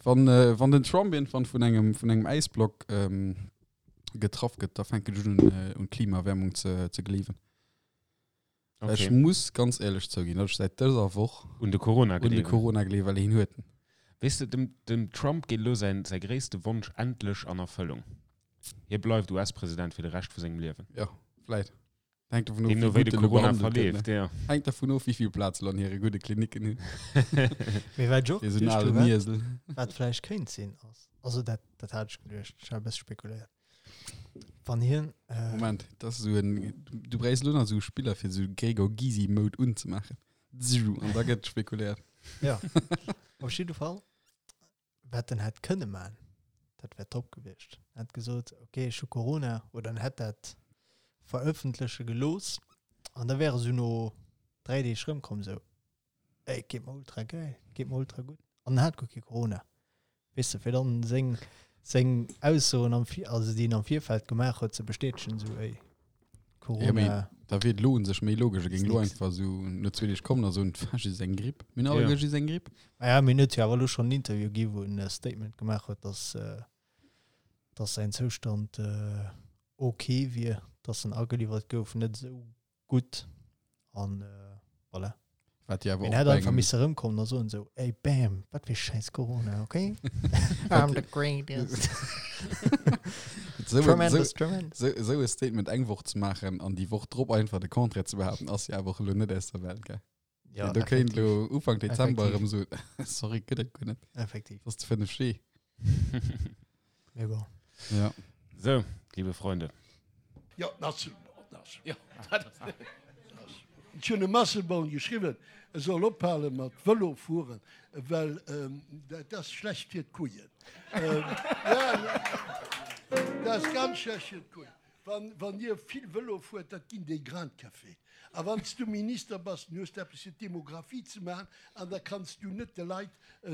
Wann, äh, wann den Trump irgendwann vun engem, vun engem Äisblock ähm, getraff gëtt, da fänken ech un, äh, un Klimaerwärmung ze, ze gleewen. Okay. Ech muss ganz éierlech zouginn, datt ech säit dëser Woch un de Corona un de gleewen. Corona gleewen, well hien huet en. Weess de, dem, dem Trump geet elo säin, säi gréisste Wonsch endlech an Erfëllung. Hie bleift US-President fir de Rescht vu sengem Liewen. Jo, vläit. Hänkt dovun of, Deemno wéi wéi gutt de en elo Corona behandelt gëtt, ne? verleeft, ja. Hänkt dervun of, wéi vill Plaz elo an hire gudde Klinicken hunn. Mee wat ech och Fir esou en geduecht alen hu, wat, Iesel. wat vläicht kéint sinn, ass, also dat, dat hat ech geduecht, ech hat e bësse spekuléiert, wann hien, äh, Moment, dat ass esou en, du bräichs elo nach esou e Spiller, fir esou Gregor Gysi-Mode unzemaachen. Zzzju, An da gëtt spekuléiert. Ja, op jidde Fall, wat en hätt kënne man, dat wär top gewiescht. En hätt gesot, okay, ech hu Corona, oder en hätt dat verëffentleche gelooss, an da wär e sou no 3 Deeg rëmkomm, sou, ey, et geet mer ultra geil, et geet mer ultra gutt, an en hat guer kee Corona. Weess de, fir dann seng, seng Aussoen am Vir-, also déi en am Virfeld gemaach huet, ze bestätegen, sou, ey, Ja, mee Corona. da wier et elo un sech méi logesch, e géing elo Nix. einfach esou no zwee Deeg kommen a soen, et war just eng Gripp. Mir hunn Ja. alleguer just eng Gripp. Ah ja, mee en huet jo awer elo schonn en Interview gi wou en e Statement gemaach huet, dass, dass säin Zoustand ok wier, dass en ageliwwert gouf, net esou gutt an voilà. Wat jo awer Mee en och hätt bei einfach engem misse erëmkommen a soen esou, ey bam, wat fir schäiss Corona, ok? I'm the greatest. Esou en- Tremendous, esou- tremendous. esou- esou e Statement eng Woch ze maachen an déi Woch drop einfach de Contraire ze behaapten, ass jo awer och elo net aus der Welt, gell? Ja, Do kéint effektiv. elo Ufank Dezember Effektiv. erëm soen, sorry, gëtt et guer net. Effektiv. Dat ass de 5G. Mee bon. Ja. So, liebe Freunde. Jo, den Asselborn ass. Jo, dat ass. Ech hunn dem Asselborn geschriwwen, e soll ophale mat Vëlo fueren, well dat ass schlecht fir d'Kujen. Jo, dat ass ganz schlecht fir d'Kujen. Wann Dir vill Vëlo fuert, dat ginn déi Grains de café. A wann s du Minister bass, dann hues de eppes fir d'Demographie ze maachen an da kanns du net de Leit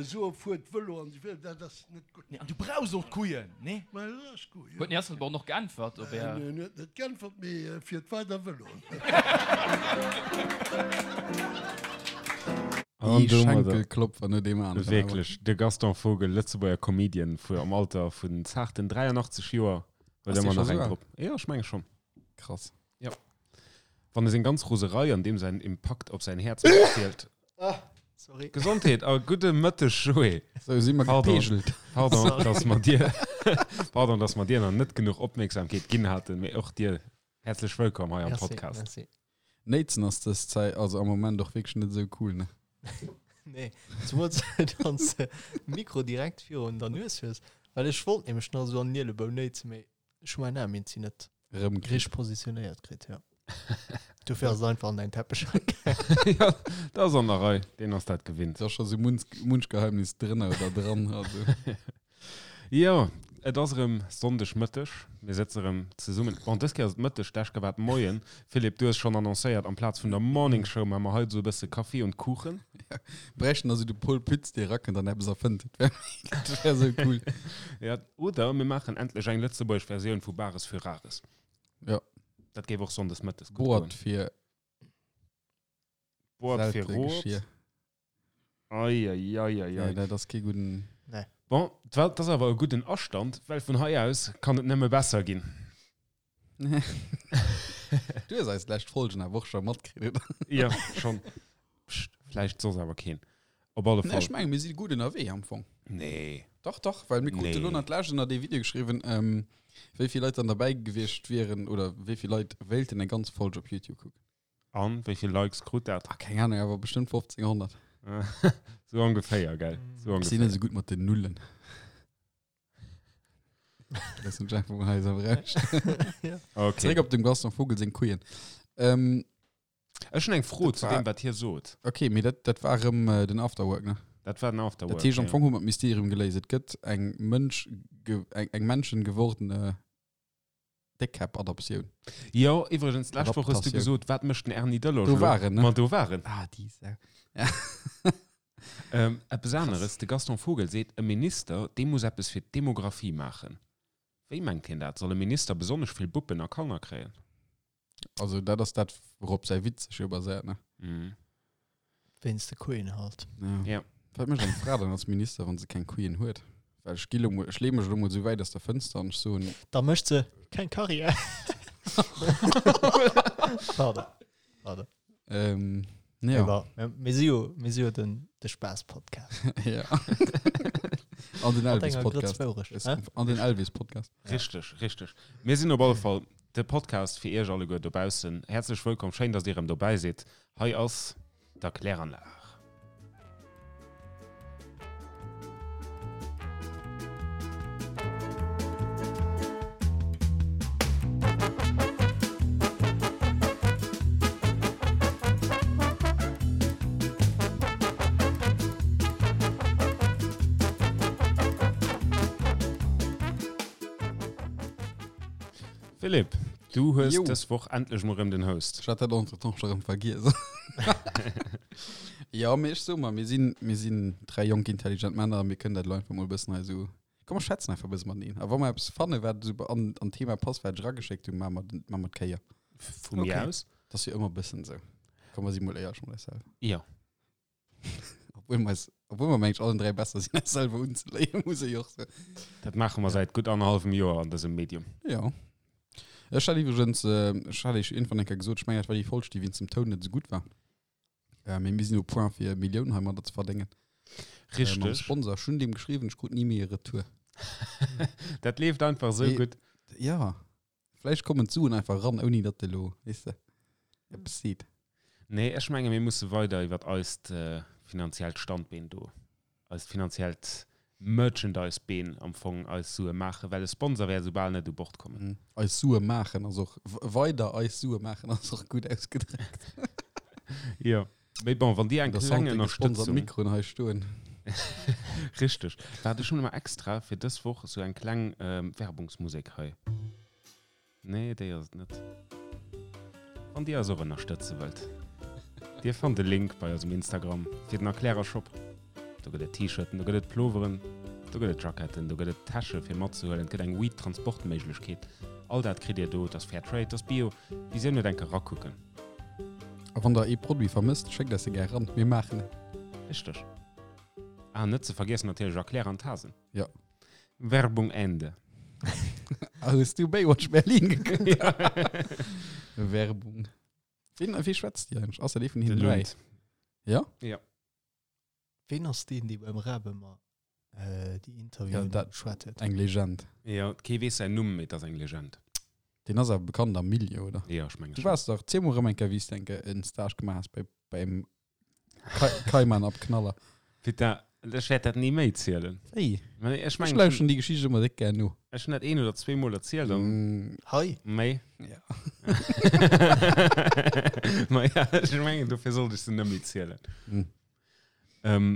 soen, fuert Vëlo an esou weider. Dat ass net gutt. Nee, an du brauchs och d'Kujen, nee? Ma dat ass gutt, jo. Huet den Här Asselborn och geäntwert op Är. En huet net geäntwert, mee fiert weider Vëlo. An Ee domadder. Schenkelklopfer no deem aneren. Wierklech, de Gaston Vogel, Lëtzebuerger Comedian, vu am Alter vun zaarten 83 Joer, huet Ass dee ëmmer scho nach eng esou al? drop. Jo, ech menge schonn. Krass. Jo. Wann e seng ganz Roserei an deem säin Impakt op säin Häerz matzielt. Ah, sorry. Gesondheet a gudde Mëtteg, Joé. Sou si mer Pardon. gepeegelt. Pardon, dass mer dir, pardon, dass mer dir nach net genuch Opmierksamkeet ginn haten, mee och dir häerzlech wëllkomm hei am Merci, Podcast. merci. Néitsen ass dës Zäit, also am Moment och wierklech net esou cool, ne? Nee, zemools wann s de Mikro direkt virun der Nues hues, well ech wollt nämlech nach esou an den Ielebou néitsen, mee ech hu mäin Aarm iergendwéi net Erëm kritt. richteg positionéiert kritt, jo. Dofir ass et einfach an däin Teppech gaangen. Ja, dat ass an der Rei, deen ass dat gewinnt. Da ass scho sou munch, munch Geheimnis drënner oder dran, also. Jo, et ass erëm Sonndeg Mëtteg, mir sëtzen erëm zesummen. Bon, dës Kéier ass et Mëtteg, d'lescht Kéier war et Moien. Philippe, du hues schonn annoncéiert, amplaz vun der Morning Show maache mer haut esou e bësse Kaffi und Kuchen. Ja, bräichten also de Paul Pütz, dee erakënnt an eppes erfënnt. Dat wär, dat wär esou cool. Ja, oder mir maachen endlech eng lëtzebuergesch Versioun vu Bares für Rares. Ja. Dat géif och sonndes mëttes gutt Boart goen. fir Boart fir seltene Rot. Geschir. Ei, ei, ei, ei, Nee, ei. dat ass kee gudden. Nee. Bon, dat ass awer e gudden Astand, well vun hei aus kann et nëmme besser ginn. Du hues eis lescht Folgen awer och scho matkritt, oder? Jo, schonn. Pscht, vläicht soss awer keen. Op alle Nee, Fall. ech mengen, mir si gutt ënnerwee am Fong. Nee. Dach, dach, well mir krute Nee. lo nach d'lescht ënner dee Video geschriwwen, ähm, wéi vill Leit dann derbäi gewiescht wieren oder wéi vill Leit wéilten eng ganz Folge op YouTube kucken. An wéi vill Likes krut dat? Ah, keng Ahnung, awer bestëmmt 1500. Sou ongeféier, gell? Sou Ech sinn net ongeféier. esou gutt mat den Nullen. Loossen ech einfach mol hei esou am Raum stinn. Okay. Zeréck op dem Gaston Vogel seng Kujen. Ähm, Ech hunn eng Fro Dat zu war- deem, wat hie sot. okay, mee dat, dat war erëm äh, den Afterwork, ne? Dat war den Afterwork. Dat heescht, am ja. Fong hu mer d'Mysterium geléist. Et gëtt eng Mënsch, ge, eng, eng menschengewordene Déckkäpp-Adoptioun. Jo, iwwregens, d'lescht Woch hues du Adaptatioun. gesot, wat mécht den Erny Delloge Do elo? war en, ne? Ma do war en. Ah, déi Sau. Ähm, eppes aneres, de Gaston Vogel seet, e Minister, dee muss eppes fir d'Demographie maachen. Wéi mengt hien dat? Soll e Minister besonnesch vill Buppen a Kanner kréien? Also dat ass dat, wourop säi Witz sech jo baséiert, ne? Mhm. Wéinst de Kujen halt. Ja. Ja. Wat mécht eng Fra dann als Minister, wann se keng Couillen huet? Well ech gi lo mol, ech leeë mech elo mol esou wäit aus der Fënster an ech soen. Da mécht se keng Karriär. Pardon. Pardon. Ähm, ja. Awer mir si jo, mir si jo den, de Spaass-Podcast. Ja. An den Mat enger Grëtz Elvis-Podcast. Wourecht, hä? An den Elvis-Podcast. Richteg, richteg. Mir sinn op alle Fall de Podcast fir Iech alleguer dobaussen. Häerzlech wëllkomm, schéin, dass Dir erëm dobäi sidd. Hei ass der Kläranlag. Philipp, du hues Jo. dës Woch endlech mol rëm den Host. Ech hat dat entretemps scho rëm vergiess. Ja, mee ech so mer, mir sinn, mir sinn dräi jonk intelligent Männer, mir kënnen dat elo einfach mol e bëssen hei esou, komm mer schwätzen einfach e bësse mateneen. A wa mer eppes fannen, wat esou an, an d'Thema passt, wat ech erageschéckt hunn, maache mer den, maache mer d'Kéier. Vu mir Okay. aus. Dat ass jo ëmmer e bëssen esou. Komm, mer si mol éierlech mat eis selwer. Jo. Obwuel mer eis, obwuel mer mengen ech allen 3 besser sinn eis selwer unzeléien, muss ech och soen. Dat maache mer säit gutt annerhallwem Joer an dësem Medium. Jo. Ech hat iwwregens, ech hat iech iergendwann eng Kéier gesot, ech mengen dat war déi Folg, déi wéinst dem Toun net esou gutt war. Mee mir sinn au point fir Milliounen heimadder ze verdéngen. Mam Richteg. Sponsor. Ech hunn deem geschriwwen, ech krut ni méi e Retour. Dat leeft einfach esou Mee- gutt. Ja. Vläicht kommen d'Suen einfach ran, ouni datt de lo, weess de, eppes seet. Nee, ech menge mir musse weider iwwer eist finanziellt Standbeen do, eist finanziellt Merchandise-Been am Fong eis Sue maachen, well e Sponsor wäert esou bal net u Bord kommen. Eis Sue maachen ass och, weider eis Sue maachen ass och gutt ausgedréckt. Jo, mee bon, wann dir eng Der kleng Santé gesponsert Ënnerstëtzung. Mikroen hei stoen. Richteg. Waart, ech hunn emmer extra fir dës Woch esou eng kleng Werbungsmusek hei. Nee, déi ass et net. Wann dir eis och ënnerstëtze wëllt, dir fannt de Link bei eisem Instagram fir den Erklärershop. Do gëtt et T-Shirten, do gëtt et Ploveren, do gëtt et Jacketten, do gëtt et Täsche fir matzehuelen, et gëtt eng Weed-Transportméiglechkeet. All dat kritt dir do. Et ass Fair Trade, et ass Bio. Wisou net enke rakucken? A wann der ee Produit vermësst, schéckt eis e gär ran, mir maachen en. Richteg. Ah, net ze vergiessen natierlech Erklärer an Tasen. Ja. Werbung Ende. Ah, hues du Baywatch Berlin gekuckt? Werbung. Wien, wie schwätzt déi eigentlich? Ass dat ee vun Den hinnen dräi? Lund. Ja? Ja. Ween ass deen, dee beim Raab ëmmer äh, déi Interviewen Ja, dat- geschwat huet? Eng Legend. Ja, kee weess säin Numm, mee et ass eng Legend. Deen ass awer bekannt am Milieu, oder? Ja, ech menge Du schon. waars dach, ziel mol erëm eng Kéier, wéi s de eng Kéier en Stage gemaach has bei, beim Kaiman ab Knaller. Putain, ech wäert dat ni méi zielen. Wéi? Mä ech Ech mengen, lauschen déi Geschicht ëmmer déck gär no. ech hunn dat een oder zweemol erzielt an Mm, Hei, méi. ja. Ma ja, ech mengen, dofir sollt ech se net méi zielen. Mm. Ähm,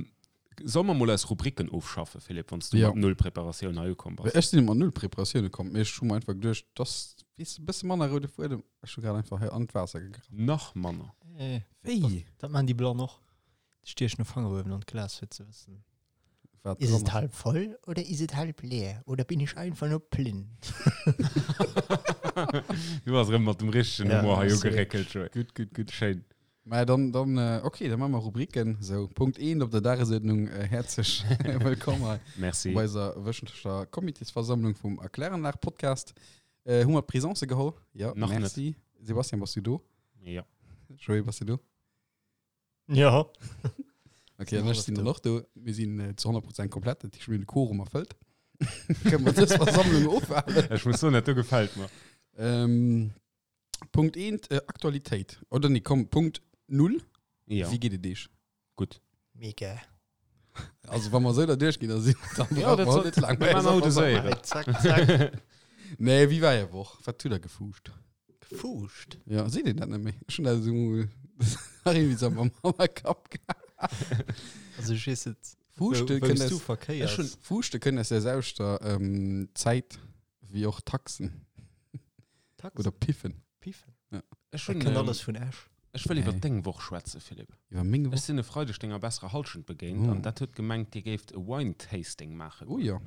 soll mer mol eis Rubriken ofschaffen, Philippe, wann s du Ja. mat null Preparatioun hei ukomm bass? Ech sinn mat null Preparatioun komm, mee ech hu mer einfach geduecht, dass, weess de, e bësse manner roude Fuedem. Ech hu grad einfach hei an d'Waasser gegraff. Nach manner. äh, Wéi? dat man déi Blann och. Déi stiechen e Fanger uewen an d'Glas fir ze wëssen. Wat Is dran et ass. halb voll oder is et halb leer oder bin ich einfach nur blind? Du bass erëm mat dem richtegen Ja, Humor hei sorry. ugeréckelt, Joé. Gutt, gutt, gutt. Schéin. Mä dann, dann, äh, okay, dann maache mer Rubriken. Sou, Punkt 1 op der Dagesuerdnung. Äh, häerzlech wëllkomm hei Merci. bei eiser wöchentlecher Comitésversammlung vum Erkläranlag-Podcast. Äh, hu mer d'Presence geholl? Ja, Nach net. merci. Sebastian, bass du do? Ja. Joé, bass du do? Ja. Okay, Sinn an ech hallef sinn do. dann och do. Mir sinn äh, zu 100% komplett, dat heescht, mir hunn de Quorum erfëllt. Kënne mer dës Versammlung ofhalen. Ech muss soen, dat do gefält mer. Ähm, Punkt 1, äh, Aktualitéit. Oder nee, komm, Punkt 0. Ja, Wéi geet et iech? gutt. Mega. Also, wa mer esou da duerchginn, da sinn dann Ja, brauche dat mer soll- net lang mir maachen haut esou. Zack, zack. Nee, wéi war är Woch? Wat hutt der gefuuscht? Gefuuscht. Ja, seet een dat net méi? Ech hunn dat esou nach irgendwie so am am Kapp gehabt. Also ich weess et. Fuuschte Wou- kënnt wous du aus, verkéiers. ech hunn Fuuschte kënnt aus der selwechter ähm, Zäit wéi och Taxen Taxen. oder Piffen. Piffen. Ech Dat hunn, kënnt ähm, alles vun Esch. ech wëll iwwer Nee. deng Woch schwätzen, Philippe. Iwwer meng Ech Woch? sinn e Freideg denger besserer Hallschent begéint Oh. an dat huet gemengt, dir géift e Wine-Tasting maachen. Oh ja.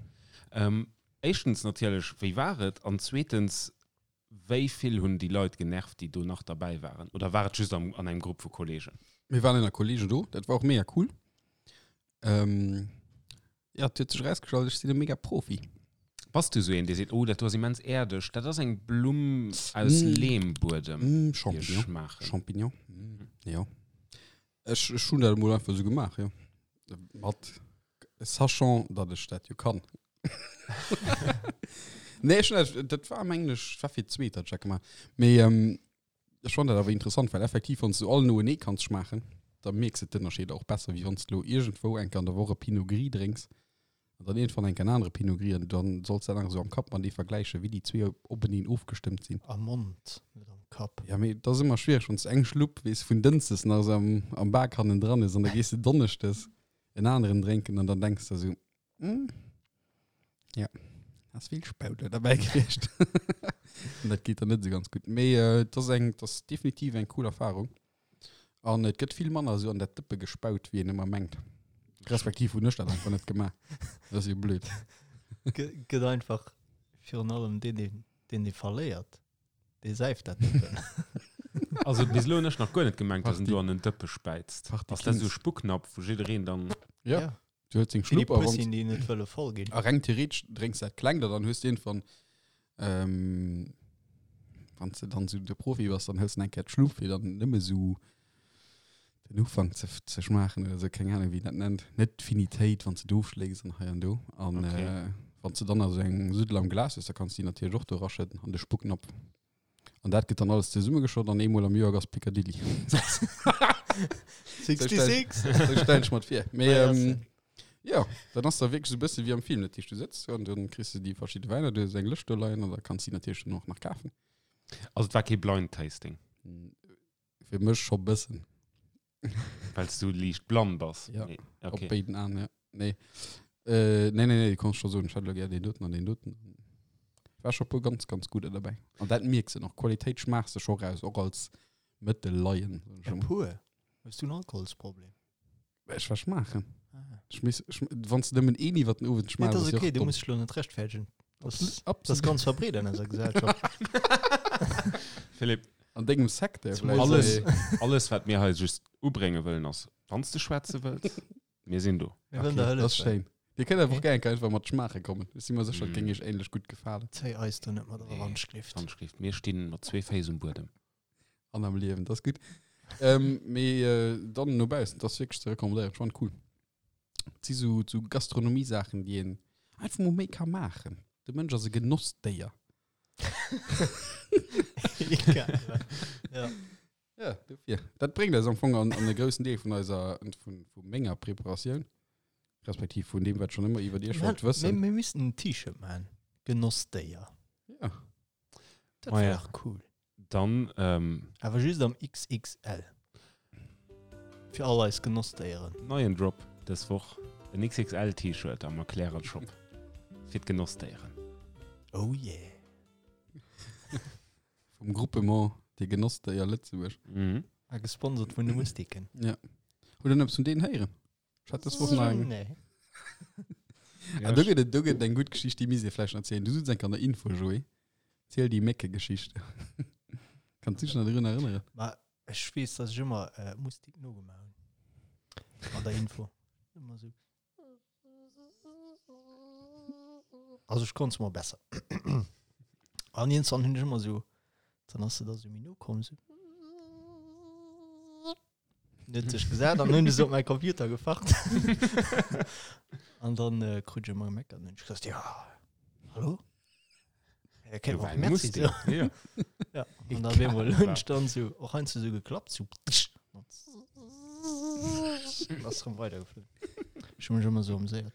Ähm, éischtens natierlech, wéi war et? An zweetens, wéi vill hunn déi Leit genervt, déi do nach derbäi waren? Oder war et just am, an engem Grupp vu Kollegen? Mir waren ënner Kollegen do, dat war och mega cool. Ähm, ja, et huet sech erausgestallt, ech sinn e mega Profi. Bass du sou een, dee seet, oh, dat do ass immens äerdeg, dat ass eng Blumm aus Mm. Lehmbuedem, Mm, déi ech Champignon. schmaachen. Champignon. Mm. Jo. Ech, ech hunn dat emol einfach sou gemaach, jo. Mat, sachant, datt ech dat jo kann. Nee, ech hunn dat, dat war mengen ech, war fir d'zweet, datt ech dat gemaach. Mee, ähm, Ech fannen dat awer interessant, well effektiv wann s du all noenee kanns schmaachen, da mierks de d'Ënnerscheeder och besser, wéi wann s de lo iergendwou eng Kéier an der Woch e Pinot Gris drénks an dann iergendwann eng Kéier en anere Pinot Gris an dann solls dat nach esou am Kapp matenee vergläichen, wéi déi zwee openeen ofgestëmmt sinn. Am Mond, net am Kapp. Ja, mee et ass ëmmer schwiereg, wann s de eng Schlupp, weess, vun Dënschdes nach esou am, am Bak hannendran hues an da gees de Donneschdes en aneren drénken an dann denks de esou, Hm. Ja, ass vill Spauder dabei gewiescht. An dat geet dann net so ganz gut. Mee äh, das ass eng, das ass definitiv eng cool Erfahrung. An et gëtt vill manner so an dat Dëppe gespaut, wéi een ëmmer mengt. Respektiv hunn ech dat einfach net gemaach. Dat ass jo blöd. Gëtt einfach virun allem deen, deen, deen, dee verléiert. Dee säift dat Dëppen. Also bis elo hunn ech nach guer net gemengt, dass en Party. do an en Dëppe späizt. Party Ass dat esou Kings. Spucknapf, wou jiddereen dann. Ja. Ja. Du hues deng Fir déi Schlupp a wann Pussien, déi net wëlle voll ginn. A reng theoretesch drénks dat klengt a dann hues de iergendwann, ähm, wann s de dann esou de Profi bass, dann hëls de eng Kéier d'Schlupp, fir dann nëmme esou den Ufank ze, ze schmaachen oder esou, keng Ahnung, wéi een dat nennt. Net d'Finitéit, wann s de d'ofschlécks an hei an do. An Okay. äh, wann s de dann also eng Suddel am Glas hues, da kanns de déi natierlech och do eraschëdden an de Spucknapf. An dat gëtt dann alles zesummegeschott an eemol am Joer ass Piccadilly. 66! Sou stellen ech mer et vir. Mee Ah, ja, ähm, ja, dann ass da wierklech sou e bësse wéi am Film. Dat heescht, du sëtz do an dann kriss du déi verschidde Wäiner, du hues eng Lëscht do leien an da kanns du déi natierlech dann och nach kafen. Also et war kee Blind Tasting, Fir mech scho bëssen. well s du liicht blann bass. Ja, Nee, Op okay. béiden Aen, ja. Nee. Äh, nee, nee, nee, du kanns scho soen, ech hätt elo gär deen doten an deen doten. War scho puer ganz, ganz gudder derbäi. An dat mierks de och, Qualitéit schmaachs de scho raus, och als Mëttelleien, soen ech E emol. puer? Hues du en Alkoholsproblem? Ech war schmaachen. Ah. Ech miss, ech, wann s de nëmmen een iwwer den Owend Nee, schmaachs, dat ass ass jo okay, och du domm. muss dech elo net rechtfäerdegen. Das, Absolut, das ass absolut. ganz verbreet an eiser Gesellschaft. Philipp, An dengem Secteur Zumal vläicht, alles, mee- alles wat mir hei just ubrénge wëllen ass, wann s de schwätze wëlls, mir sinn do. Mir wëllen der Okay, das ass hëllefen. schéin. Dir kënnt einfach Okay. gär enke einfach mat schmaache kommen. Ech si mer sécher, et Mm. géing iech ähnlech gutt gefalen. Zéi eis do net mat Nee. erer Handschrift. Handschrift. Mir stinn mat zwee Féiss um Buedem. An am Liewen, das ass gutt. Ähm, mee äh, dann no baussen, das ass wierklech ze recommandéieren. Ech fand cool. Et si sou, sou Gastronomie-Saachen, déi een einfach mol méi ka maachen. De Mënsch ass e Genossdéier. Egal. Ja. Ja, dofir. Dat bréngt eis am Fong an, an e groussen Deel vun eiser, vun, vu menger Preparatioun, respektiv vun deem, wat ech schon ëmmer iwwer Iech wollt Mir, wëssen. mir missten en T-Shirt maachen. Genossdéier. Ja. Dat Ma wär ja. dach cool. Dann, ähm, Awer just am XXL. Fir all eis Genossdéieren. neien Drop dës Woch, en XXL-T-Shirt am Erklärer-Shop fir d'Genossdéieren. Oh yeah. Vum Groupement Déi Genossdéier Lëtzebuerg. Mhm. A gesponsert vun de Mustiken. Ja. Hutt Der eppes vun deenen héieren? Ech hat dës Woch nach eng. Nee. Ah, do gëtt et, do gëtt et eng gutt Geschicht, déi misst Dir vläicht nach erzielen. Du sutz enk an der Info, Joé. Ziel déi Méckegeschicht. Kanns du dech nach drun erënneren? Ma ech weess, dass ech ëmmer äh, Mustik nogemaach hunn. An der Info. Ëmmer sou. Also ech konnt mol besser. An irgendwann hunn ech ëmmer sou, dann ass se da sou méi no komm, sou. Dann huet sech gesat an hunn ech se op mäi Computer gefacht. An dann äh, krut ech ëmmer gemeckert an hunn ech gesot, ja, hallo? Ja, kennt man och Merci so. Ja. Ja, an dann bemol hunn ech dann sou, och heiansdo sou geklappt, sou. Ass rëm weidergeflunn. Ech hu mech ëmmer sou ameséiert.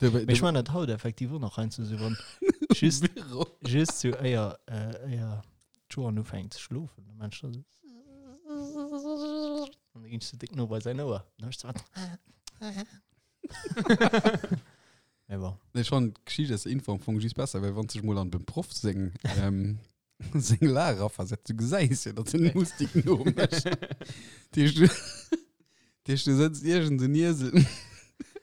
Du, Mee ech man dat haut effektiv och nach heiansdo sou, wann just, Büro. just sou éier, äh, éier d'Joan ufänkt ze schlofen, dann man ech da sou. An da ginn ech sou déck no bei säin Ouer. Dann hu ech sou. Mee bon. Nee, schon d'Geschicht ass Info am Fong just besser, well wann sech mol an dem Proff seng ähm, seng Lag raversetzt, du gesäis jo, datt en Mustik nomécht. Dat heescht, du, dat heescht, du sëtzt iergend en Iesel,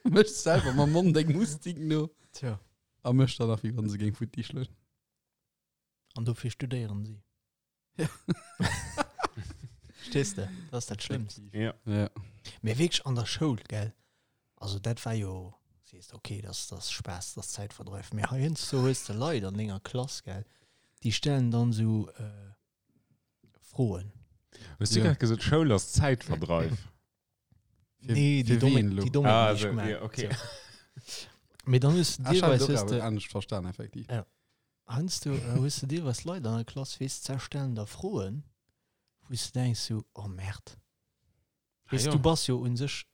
méchs selwer mam Mond eng Mustik no Tja. a mécht dann nach, wéi wann se géing futti schloen. An dofir studéieren si. Ja. Verstees de? Dat ass dat Schlëmmst. Ja. Ja. Mee wierklech an der Schoul, gell? Also dat war jo, sees de, okay, dat ass Spaass, dat ass Zäitverdreif. Mee heiansdo hues de Leit an denger Klass, gell, déi stellen dann esou Froen. Hues du grad gesot, Schoul ass Zäitverdreif? Nee, déi domme, déi domme ah, also, ja, okay. Mee dann hues du ah, deelweis hues de anescht verstan effektiv. Ja. Heiansdo äh, hues du deelweis Leit an der Klass, weess, ze stellen der Froen, wou s du denkst so, oh Merd. Weess, ah, ja. du bass jo un sech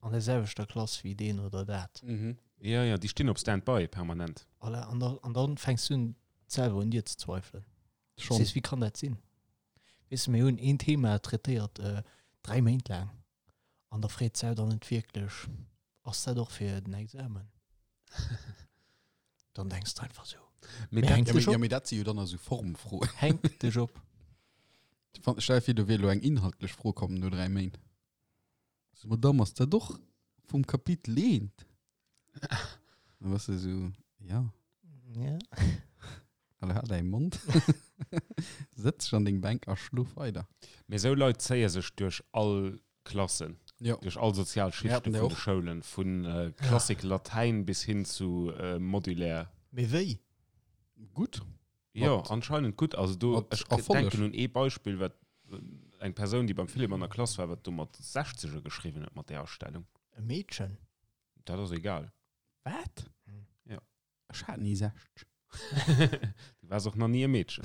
an der selwechter Klass wéi deen oder dat. Mhm. Ja, ja, déi stinn op Stand-by permanent. Voilà, an, da, an dann fängst du un selwer un dir ze zweifelen. Schon. Sees, wéi kann dat sinn? Weess de, mir hunn een Thema traitéiert äh, 3 Méint laang an da freet d'Sau dann net wierklech, ass dat och fir den Examen? Dann denks de einfach sou. Mee dat, hänk Ja, dech mee, ja, op. mee dat si jo dann esou Formfroen. Hänk dech op. Stell dir vir, do wier elo eng inhaltlech Fro komm no 3 Méint. So, Madame, ass dat och vum Kapitel eent? Dann bass de sou, ja. Ja. Allee, hal däi Mond. Sëtz dech an deng Bänk a schlof weider. Mee sou Leit zéie sech duerch all Klassen, Jo. duerch all sozial Mir Schichte haten vun der de och. Schoulen, vu Klassik Latäin bis hin zu Modulaire. Mee wéi? Gutt. Jo, Mat- anscheinend gutt. Also do, mat ech Erfolleg. denken un ee Beispill, wat eng Persoun, déi beim Philippe an der Klass war, wat do mat Sechzege geschriwwen huet mat där Astellung. E Meedchen? Dat ass egal. Wat? Hm. Ja. Ech hat ni 60. Du waars och nach ni e Meedchen.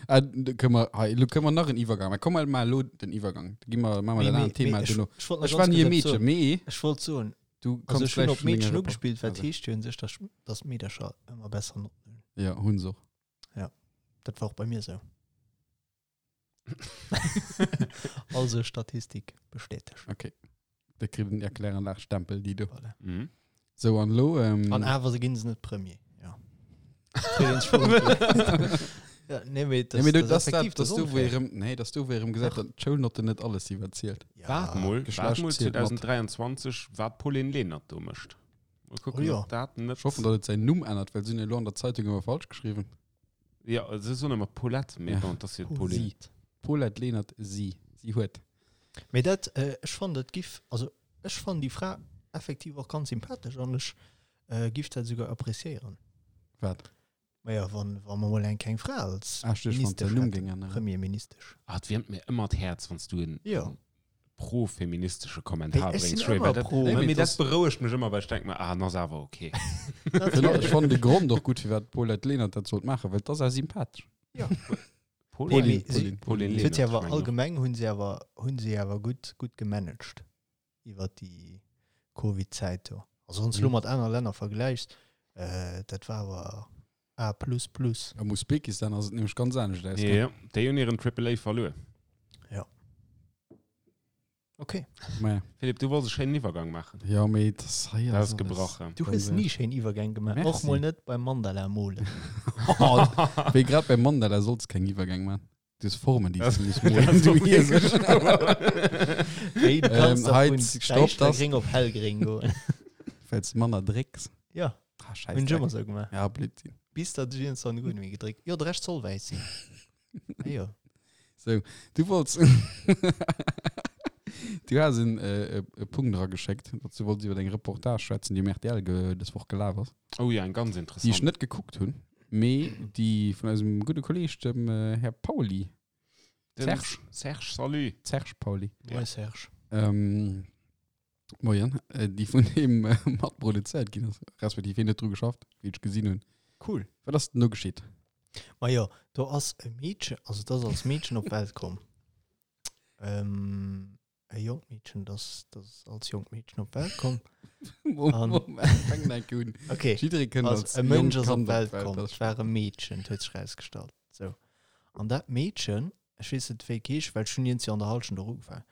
Ah, do kënne mer, hei, elo kënne mer nach en Iwwergang maachen. Komm, mer maachen elo den Iwwergang. Da gi mer, maache mer Mee, dat mee, anert Thema mee, ech, duerno. ech wollt nach Ech war ganz ni e kurz etwas Meedchen, soen. mee Ech wollt soen, du also kanns ech hunn vläicht op vun denger Meedchen Report. ugespillt, wat Also, heescht jo un sech, dass, dass d'Meedercher ëmmer besser Notten hunn. ja, hunn se och. Ja, dat war och bei mir sou. Also Statistik bestätegt. Okay. Da kritt en Erkläranlagstempel, déi do. Voilà. Mhm. Sou, an elo, ähm, An awer se ginn se net Premier. Ja. Kritt een scho net. Ja, nee, mee Nee, mee du, das, das, das, effektiv, das, das du, wou unfair. erëm, nee, das du, wou erëm gesagt hat, d'Schoulnotten net alles si wat zielt. Ja. Waart mol, waart Geschlecht mol zielt mat. 2023, wat d'Pauline Lenert do mécht. Mol kucken, Oh ja. ob dat net. Ech hoffen, datt et säin Numm ännert, well se hunn elo an der Zeitung ëmmer falsch geschriwwen. Ja, se soen ëmmer Paulette, mee Ja. bon, dat ass jo d'Pauline. Si. Paulette Lenert, si. Si huet. Mee dat, äh, ech fannen dat giff, also ech fannen déi Fra effektiv och ganz sympathesch an ech äh, giff dat souguer appréciéieren. Wat? Maja, wann, wa mer mol eng keng Fra als Ah, ech duecht, wann Ministesch den Numm hätten, géing änneren. Premierministesch. Ah, et wiermt mir ëmmer d'Häerz, wann s du en Ja. pro-feministesche Kommentar Hey, ech bréngs, sinn Schwéi, ëmmer well dat, pro. nee, Nee, mee mee dat das- berouegt mech ëmmer, well ech denk mer, ah, en ass awer okay. Ech fannen de Grond och gutt, firwat d'Paulette Lenert dat sollt maachen, well et ass awer sympathesch. Ja. Pauline, Nee, mee Pauline, si- Pauline Si huet Lenert, si awer ech mengen och. allgemeng hunn si awer hunn si awer gutt gutt gemanagt iwwer déi Covid-Zäit do. Also wann s du lo Mhm. mat aner Länner vergläichs, äh, dat war awer A plus plus. Am Usbekistan ass et nämlech ganz anescht ausgaangen. Ja, déi hunn hiren Triple A verluer. Ja. Okay. Maja. Philippe, du wollts e schéinen Iwwergang maachen. Ja, mee dat ass hei Dat ass alles. gebrachen. Du hues ni schéin Iwwergäng gemaach. Merci. Och mol net beim Mandala molen. Wéi grad beim Mandala solls keng Iwwergäng maachen. Du hues Formen, déi Das- s du muss das molen. ass Du och Iesel. Wéi du kanns Ähm, da hei, vun stopp, das- däischtergréng op hellgréng goen. Well s du manner drécks. Ja, Ah, scheiß hunn ech Dreck. ëmmer sou gemaach. Ja, Blödsinn. Bis datt ech iergendwann guer net méi gedréckt. Jo, de Rescht soll wäiss sinn. Ah jo. So, du wollts. Du has en äh, e Punkt erageschéckt, datt du wollts iwwer eng Reportage schwätzen, déi um RTL ge dës Woch gelaf ass. Oh ja, eng ganz Déi ech interessant. net gekuckt hunn, mee déi vun eisem gudde Kolleeg, dem äh, Här Pauly, Den Serge. Serge, salut. Serge Pauly, Ja. Moin Serge. ähm, moien, äh, déi vun him äh, matproduzéiert ginn ass, respektiv hien huet dru geschafft, wéi ech gesinn hunn. Cool. Wat ass denn do geschitt? Ma jo, do ass e Meedchen, also dat ass als Meedchen op d'Welt komm. Ähm, e jonkt Meedchen, das, das als jonkt Meedchen op d'Welt komm. Moment, Moment, fang enk un. Okay. Jidderee kënnt Also, als e Mënsch jonkt ass op Kand op d'Welt d'Welt, komm, das et war e Meedchen, et huet sech rausgestallt. So. An dat Meedchen, ech weess net wéi et heescht, well ech hunn iergendwéi an der Hallschent och ugefaangen,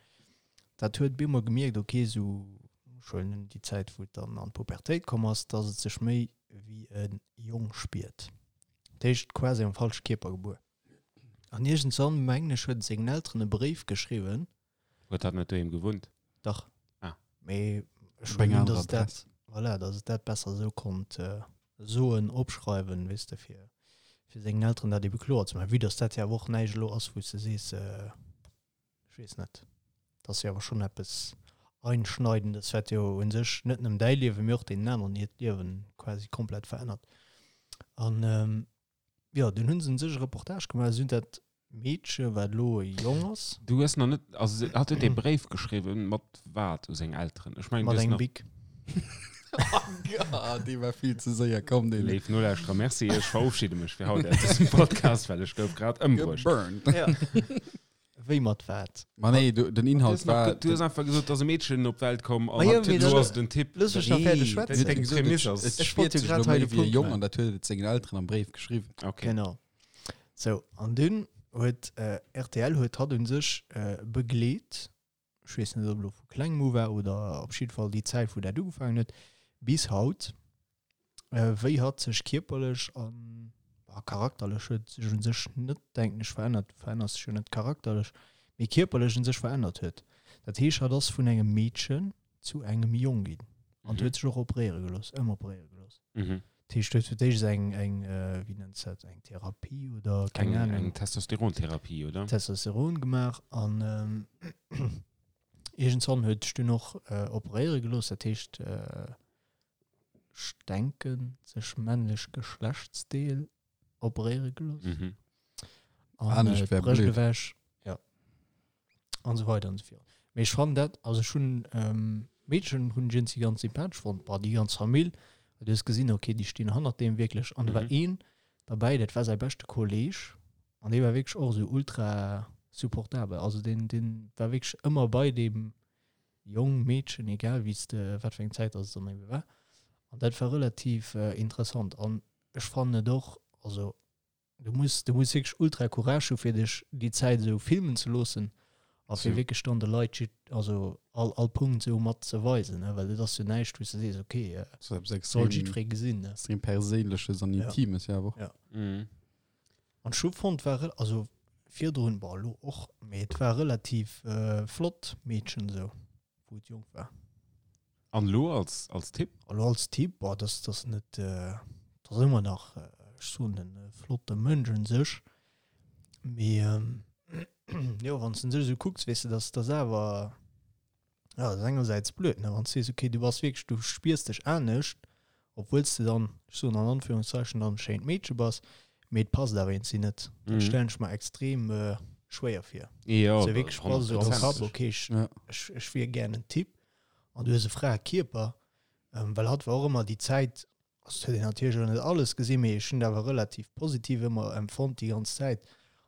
dat huet bemol gemierkt, okay, sou schonn déi Zäit, wou et dann an d'Pubertéit komm ass, dass et sech méi wéi e Jong spiert. Dat heescht quasi am falsche Kierper gebuer. An iergendswann, mengen ech, huet et sengen Elteren e Bréif geschriwwen. Huet dat net doheem gewunnt? Dach. Ah. Mee ech Op eng hunn, anerer dass et dat, Adress. voilà, dass et dat besser esou konnt soen, opschreiwen, weess de, fir, fir sengen Elteren dat ebe kloer ze maachen. Vue dass dat jo awer och näischt elo ass, wou s de sees, ech weess net, dat ass jo awer schonn eppes. Einschneidendes, wat jo u sech net nëmmen däi Liewen, mee och deenen aneren hiert Liewen quasi komplett verännert. An jo, dunn hu se u sech e Reportage gemaach, se hunn dat Meedche, wat elo e Jong ass. Du hues nach net, also hatt huet ee Bréif geschriwwen, mat wat u seng Elteren? Ech mengen, du Mat hues engem nach. Bic. Ah, dee war vill ze séier komm, deen. Léif Nolauschterer, merci, ech verofschidde mech fir haut aus dësem Podcast, well ech gouf grad ëmbruecht. Geburnt. Ja. Wéi mat wat? Ma nee, du, den Du Inhalt hues nach, war. du hues einfach gesot, dass e Meedchen op d'Welt komm an Ma jo, mee lo dann- ass et en Typ. Looss mech nach Nee, fäerdeg du schwätzen. hues Deng gesot, Prämiss et- ass- Et Ech spiert wollt jo sech grad elo hei méi de wéi e Punkt Jong maachen. an dat huet et sengen Elteren am Bréif geschriwwen. Okay. Genau. Sou, an dunn huet äh, RTL huet hatt un sech äh, begleet, ech weess net, ob elo vu klengem u war oder op jidde Fall déi Zäit, wou dat ugefaangen huet, bis haut, äh, wéi hatt sech kierperlech an a charakterlech huet sech un sech net, denken ech, verännert, du verännerst dech jo net charakterlech, mee kierperlech un sech verännert huet. Dat heescht, hatt ass vun engem Meedchen zu engem Jong ginn an Mhm. huet sech och operéiere gelooss, ëmoperéiere gelooss. Mhm. Dat heescht, huet fir d'éischt eng, eng äh, wéi nennt se dat, eng Therapie oder keng Eng, Ahnung. eng Testosterontherapie, oder? Testosteron gemaach an ähm, iergendzwann huet sech dunn och äh, operéiere gelooss, dat heescht äh, ech denken sech männlech Geschlechtsdeel operéiere gelooss Mhm. an Anescht äh, wär d'Brëscht blöd. ewech, ja an esou weider an esou fort. Mee ech fannen dat, also ech hunn ähm, d'Meedchen hunn ech iergendwéi ganz sympathesch fonnt, bah déi ganz Famill, well du hues gesinn, okay déi stinn hannert deem wierklech an do war Mhm. een derbäi, dat war säi beschte Kolleg an dee war wierklech och esou ultra supportabel, also deen deen war wierklech ëmmer bei deem Jong, Meedchen, egal wéi s de, wat fir eng Zäit dass et dann ebe war. An dat war relativ äh, interessant. An ech fannen et och, also du muss, du muss wierklech ultra Courage hu fir dech déi Zäit esou filmen ze loossen a fir So. wierklech dann de Leit jid, also all, all Punkt esou mat ze weisen, ne? Well et ass jo näischt, wou s de sees, okay, äh, Das ist etwas soll extrem, jiddweree gesinn, ne? extrem Perséinleches an Ja. Intimes, ja, awer. Ja. Mhm. An ech hu fonnt, war, rel- also virdrun, bon, elo och, mee et war relativ äh, flott Meedchen esou, wou et jonk war. An lo als, als Tipp? Elo als Typ, boah, das, das net, äh, das ass ëmmer nach, äh, ech soen, en äh, flotte Mënsch un sech. Mee ähm, jo, wann du sech esou kucks, weess de, dass das awer, ja, das ass engersäits blöd, ne, wann du sees, okay, du bass wierklech, du spiers dech anescht, obwuel s de dann, ech soen an Anführungszeichen, dann e schéint Meedche bass, mee et passt awer iergendwéi net. Dat Mhm. stellen ech mer extrem äh, schwéier vir. Ja, So wierklech bass esou am Kapp, 100%. okay, ech, Ja. ech, ech wier gär en Typ an du hues e frae Kierper, ähm, well hatt war och ëmmer déi Zäit, also et huet een natierlech och net alles gesinn, mee ech hunn dat awer relativ positiv ëmmer empfonnt déi ganz Zäit.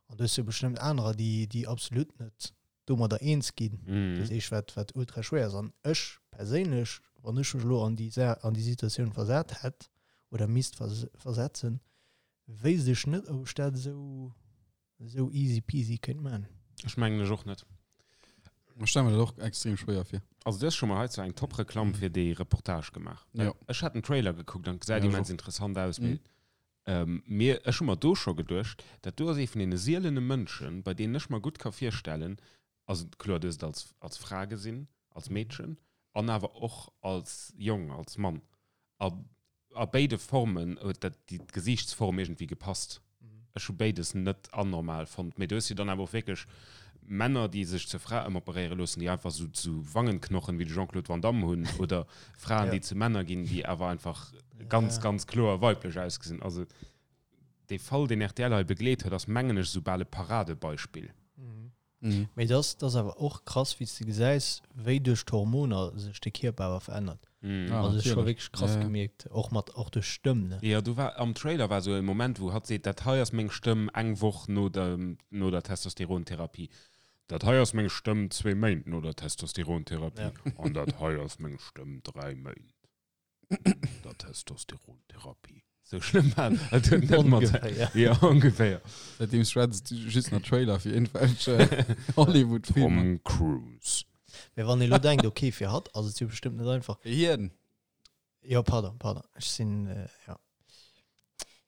An du hues jo bestëmmt anerer, déi, déi absolut net domadder eens ginn. Mhm. Dat heescht, wat, wat ultra schwéier ass. An ech perséinlech, wann ech mech elo an déi, Sa an déi Situatioun versat hätt oder misst vers versetzen, wéisst ech net, ob ech dat esou, esou easy peasy kéint man. Ech mengen ech och net. Ech stelle mir dat och extrem schwéier vir. Also du hues scho mol heizou eng Top-Reklamm fir déi Reportage gemaach. Ja. Ech hat den Trailer gekuckt an gesäit Ja, ech immens och. interessant aus. Mhm. Mee, ähm, mir, ech hu mer do scho geduecht, dat do ass ee vun deene sielene Mënschen, bei deenen ech mer gutt ka virstellen, also kloer, du hues et als, als Fra gesinn, als Meedchen, an awer och als Jong, als Mann. A, a béide Formen huet dat déi d'Gesiichtsform iergendwéi gepasst. Ech hu béides net anormal fonnt. Mee du hues jo dann awer och wierklech Männer, déi sech zur Fra ëmoperéiere loossen, déi einfach sou, sou Wangenknochen wéi de Jean-Claude Van Damme hunn, oder Fraen, Ja. déi zu Männer ginn, déi awer einfach ganz, Ja. ganz kloer weiblech ausgesinn. Also dee Fall, deen rtl hei begleet huet, ass mengen ech sou bal e Paradebeispill. Mhm. Mhm. Mee das, das awer och krass, wéi s de gesäis, wéi duerch d'Hormoner sech de Kierper awer verännert. Mhm. Ah, also ech war natierlech. wierklech krass Ja, ja. gemierkt, och mat och duerch Stëmm, ne? Ja, du war am Trailer war sou e Moment, wou hatt seet, dat hei ass meng Stëmm eng Woch no der, no der Testosterontherapie. Dat hei ass meng Stëmm zwee Méint no der Testosterontherapie. Ja. An dat hei ass meng Stëmm 3 Méint no der Testosterontherapie. Sou schlëmm war et huet net mat. Ongeféier. Ja, ongeféier. Seitdem schwätzt du just nach Trailer fir irgendwelche Hollywood-Filmer. Tom Cruise. Mee wann ee lo denkt, okay, fir hatt ass et jo bestëmmt net einfach. Fir hien. Jo, pardon, pardon. Ech sinn, äh, ja.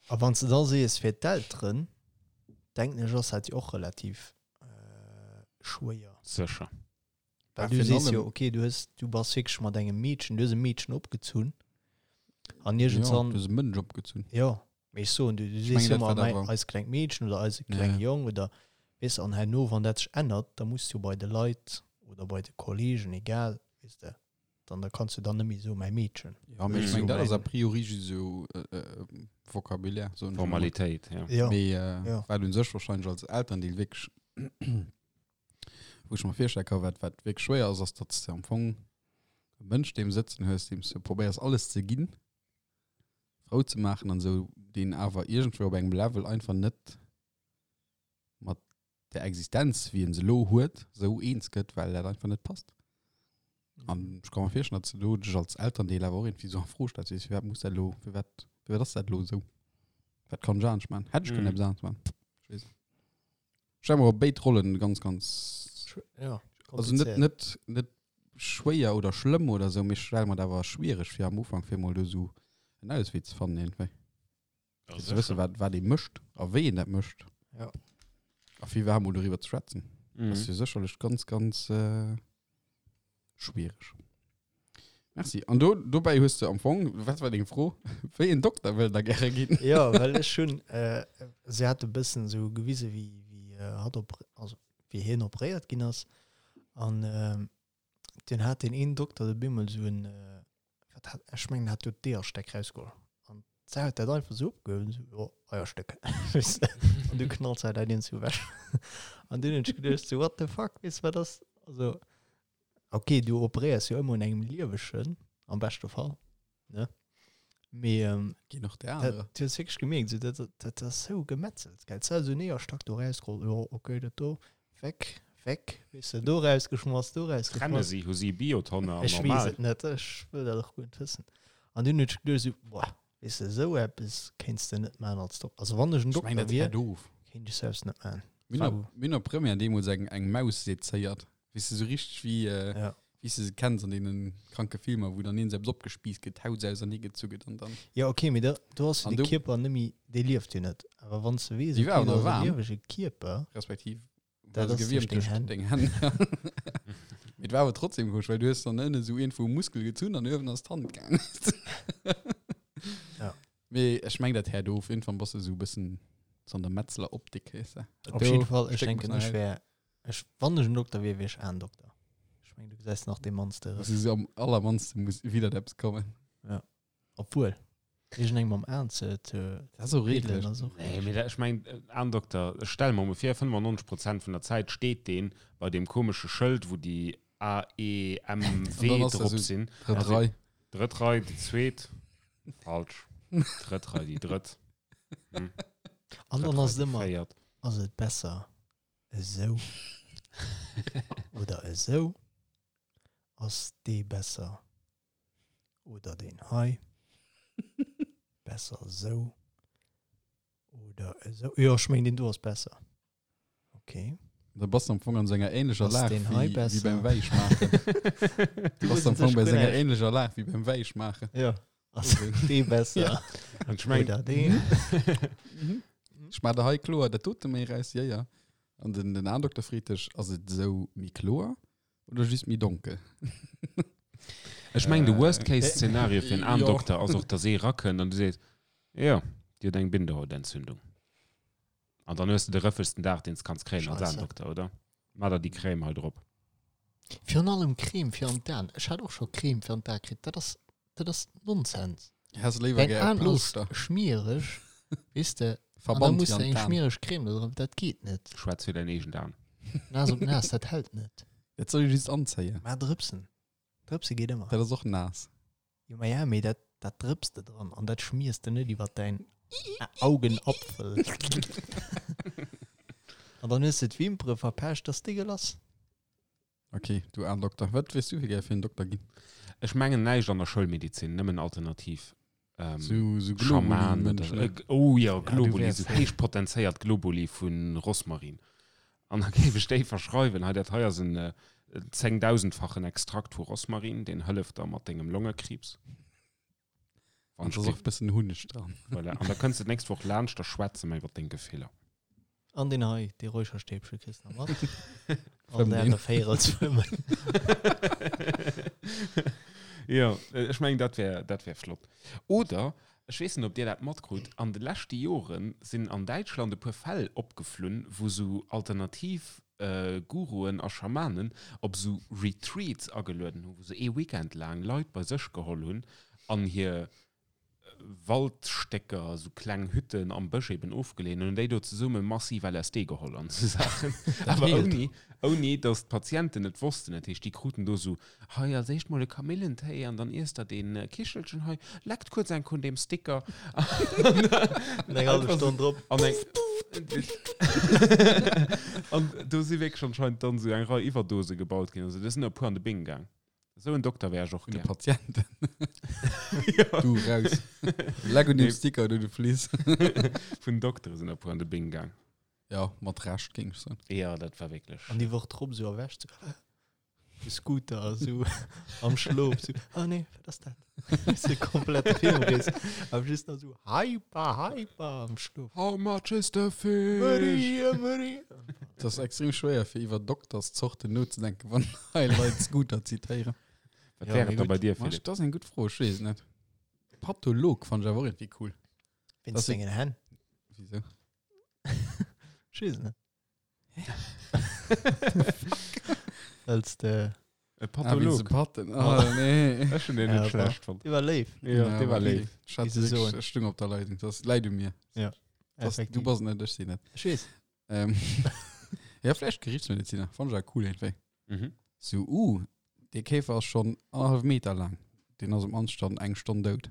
A wann s de da sees, fir d'Elteren, denken ech, ass dat jo och relativ äh, schwéier. Sécher. Well Ja, du virun sees allem- jo, okay, du hues, du bass wierklech mat engem Meedchen, du hues e Meedchen opgezunn. An Ja, iergendzwann, du hues e Mënsch opgezunn. ja, mee ech soen, du, du Ich sees mengen, jo dat ëmmer, war mei, awer- eis klengt Meedchen oder eise Ja, klenge ja. Jong oder, weess, an herno, wann dat sech ännert, da muss du bei de Leit oder bei de Kollegen, egal, Weess de? Dann da kanns du dann net méi soen, mäi Meedchen. Ja, mee ech Sou meng, dat ass a mäin. priori just esou Vocabulaire, soen ech emol. Formalitéit, ja. Ja, Mee ja. wat un sech wahrscheinlech als Elterndeel wierklech, wou ech mer virstelle ka wat wat wierklech schwéier ass, ass datt s de am Fong e Mënsch deem sëtzen hues, deem s de probéiers alles ze ginn, frou ze maachen an esou, deen awer iergendwéi op engem Level einfach net mat der Existenz, wéi en se elo huet, esou eens gëtt, well dat einfach net passt. An ech ka mer virstellen, datt s de do dech als Elterndeel awer och iergendwéi esou a Fro stells, weess, firwat muss dat elo, firwat, firwat ass dat elo esou? Wat kann ech anescht maachen? Hätt ech kënnen eppes anescht maachen? Ech weess net. Ech stelle mer och béid Rollen ganz, ganz, Ja, also net, komplizéiert. net, net schwéier oder schlëmm oder esou, mee ech stelle mer dat awer schwiereg fir am Ufank, fir emol do esou en Auswee ze fannen iergendwéi. Ja, Fir ze wëssen, sécher. wat, wat ee mécht a wéi een dat mécht. Ja. A fir iwwerhaapt mol doriwwer ze schwätzen. Mhm. Das ass jo sécherlech ganz, ganz äh, schwiereg. Merci. An do, dobäi hues de am Fong, wat war deng Fro? Wéi en Dokter wëll der gäre ginn? Ja, well ech hunn, äh, se hat e bëssen esou gewise wéi, wéi äh, hatt op, also wéi hien operéiert ginn ass. An ähm, deen hat deen een Dokter de bemol esou en, äh, wat hat, ech mengen, hat do d'Eeërstäck rausgeholl. An d'Sau huet dat einfach esou opgehuewen, esou, jo, Eierstéck, weess de. An du knallt se dat iergendwou ewech. An dunn hunn ech geduecht, sou, what the fuck, weess de, wat ass, also. Ok, du operéiers jo ëmmer un engem Liewegen, am beschte Fall, ne? Mee ähm, Ginn och der dat, anerer. du hues wierklech gemierkt, so, dat, dat ass sou gemetzelt, gell? D'Sau sou en Eeërstack do rausgeholl, jo, ok, dat do, weg, weg, weess de, do rausgeschmass, do Trenne rausgeschmass. si, hu si Biotonne an Ech weess normal. et net, ech wëll dat och guer net wëssen. An dunn hunn ech geduecht, sou, boah, weess de, sou eppes kéints de net maachen als Dokter. Also wann ech en Ech meng, Dokter dat wier, hätt of. kéint ech selbst net maachen. Mir hunn Sou. op, mir hunn op Première deemools eng, eng Maus sezéiert. Weess de, sou richteg wéi, äh, Ja. wéi s de se kenns an deenen kranke Filmer, wou dann een selbst opgespiisst gëtt, d'Haut ausernee gezu gëtt an dann. Ja, okay, mee da, do ass jo An de du- Kierper net méi, dee lieft jo net. Awer wann s de weess, Déi okay, war do awer ass e waarm. liewege Kierper, Respektiv Dat war se ass duerch gewiermt deng duerch Hänn. deng Hänn. Mee et war awer trotzdem komesch, well du hues dann ënne sou iergendwou e Muskel gezunn an uewen ass d'Hand gaangen. Ja. Mee ech meng, dat häert of. Iergendwann bass de sou e bëssen so an der Metzler-Optik, weess de. Dat Op do jidde Fall, ech Stéck muss denken, nach ech aus. wär, ech, wann ech en Dokter wier, wier ech Aendokter. Ech mengen, du gesäis nach dee mannste Das Rëss. ist am allermannsten muss wieder eppes kommen. Obwuel, iergendengem am Aen ze, ze Das ist auch piddelen redlich. ass och Nee, mee dat, ech mengen, Aendokter, ech stelle mer emol vir, 95 Prozent vun der Zäit steet deen bei deem komesche Schëld, wou déi A, E, M, W An dann ass dat drop so sinn. Drëtt Also, Rei. Drëtt Rei, déi zweet. Falsch. Drëtt Rei, déi drëtt. Hm. An Drëtt dann Rei, ass et déi ëmmer, véiert. ass et besser esou oder esou? Ass dee besser oder deen hei? Besser esou oder esou? Jo, ech mengen, deen do ass besser. Okay. Da bass du am Fong an senger ähnlecher Ass Lag deen hei wéi, wéi besser? beim Wäischmaachen. Du bass am Fong bei senger ähnlecher Lag wéi beim Wäischmaachen. Ja. Ass dee besser Ja. An ech mengen, oder deen? Mhm. Ech maach der hei kloer dat dote méi raus, ja, ja. An den, den Aendokter freet dech, ass et esou méi kloer oder just méi donkel? Ech mengen, de Äh, Worst-Case-Szenario fir en jo. Aendokter ass och, dass ee rakënnt an du sees, jo, Dir hutt eng Bindehautentzündung. An dann hues de de rëffegsten Dag, deen s kanns kréien als Scheisse. Aendokter, oder? Maa der déi Crème hei drop. Virun allem Creme fir an d'Aen. Ech hat och scho Creme fir an d'Ae kritt. Dat ass, dat ass Nonsens. Häss léiwer Däin gär e Aen ass Plooschter. schmiereg, weess de, an da Verband muss fir de an eng d'Aen. schmiereg Creme do drop. Dat geet net. Schwätz fir däin eegent Aen. Naass op naass, dat hält net. Dat soll ee just anzéien. Mä drëpsen. Drëpse geet ëmmer. Dat ass och naass. Jo, ma ja, mee dat, dat drëps de dran an dat schmiers de net iwwer däin Augenapfel. An dann hues de d'Wimpere verpescht, dat ass dégueulasse. Okay, du Aendokter. Wat wéis du fir gär fir en Dokter ginn? Ech mengen näischt an der Schoulmedizin, nëmmen alternativ. Ähm, Sou, sou Schaman oder, Globuli-Mënsch, ne? äh, oh ja, Ja, du Globuli, wärs sou safe. héich potenzéiert Globuli vu Rosmarin. An da géif ech déi verschreiwen, hei dat hei ass en äh, zéngdausendfachen Extrakt vu Rosmarin, deen hëlleft der mat dengem Longekriibs. An da ass och e bëssen Hunneg dran. Voilà. An da kënns de d'nächst Woch laanscht, da schwätze mer iwwer deng Gefiller. An deen hei, dee Räucherstäbche kriss de nach mat. All Fëmm Dag deen. e Véierel fëmmen. Jo, ech mengen, dat wär, dat wär flott. Oder, ech weess net, ob Dir dat matkrut, an de leschte Jore sinn an Däitschland e puer Fäll opgeflunn, wou sou alternativ. Guruen a Schamanen op esou Retreats agelueden hunn, wou se ee Weekend laang Leit bei sech geholl hunn an hir Waldstécker, esou kleng Hütten am Bësch eben ofgeleeën hunn an déi do zesumme massiv LSD geholl an esou Saachen. Awer ouni, ouni datt d'Patienten et wossten. Dat heescht, déi kruten do esou, hei als éischt mol e Kamillentéi an dann iesst der dee Kichelchen hei, leckt kuerz eng vun deem Sticker. An eng hallef Stonn drop. An eng An do si wierklech anscheinend dann esou eng Rei Iwwerdose gebaut ginn. Also do sinn der e puer an de Bing gaang. Esou en Dokter wär ech och Vun de gär. Patienten. Ja. Du raus. Leck un deem Sticker do, du Fliss. Vun Doktere sinn der e puer an de Bing gaang. Ja, mat Recht, géing ech soen. Ja, dat war wierklech. An déi Woch drop esou erwächt, esou, de Scooter esou am Schlof, esou, oh nee, wat ass dat? Esou komplett Filmriss. Awer just nach esou hyper, hyper am Schlof. How much is the fish? Maria, Maria. Et ass extrem schwéier, fir iwwer Dokterszorten nozedenken, wann hei Leit Scooter zitéieren. Wat Ja, wär mee et da gutt. bei dir, Ma, Philippe? Dat ass eng gutt Fro, ech weess et net. Patholog fannt ech awer och iergendwéi cool. Wéinst Das- sengen Hänn. Wieso? Ech weess et net. Wëlls de E Ah, wéinst de Patholog. Patten. Ah, nee. Ech hunn deen Ja, net aber- schlecht fonnt. Dee war léif. Ja, dee war léif. Ech hat Wéi se wirklich- soen. ech stung op der Leitung. Das läit u mir. Ja, Das, du effektiv. bass net, ech sinn net. Ech weess. Ähm, ja, vläicht Gerichtsmediziner. Fand ech awer cool iergendwéi. Mhm. So, uh, dee Käfer ass schonn annerhallef Meter laang. Deen ass um Anstand eng Stonn dout.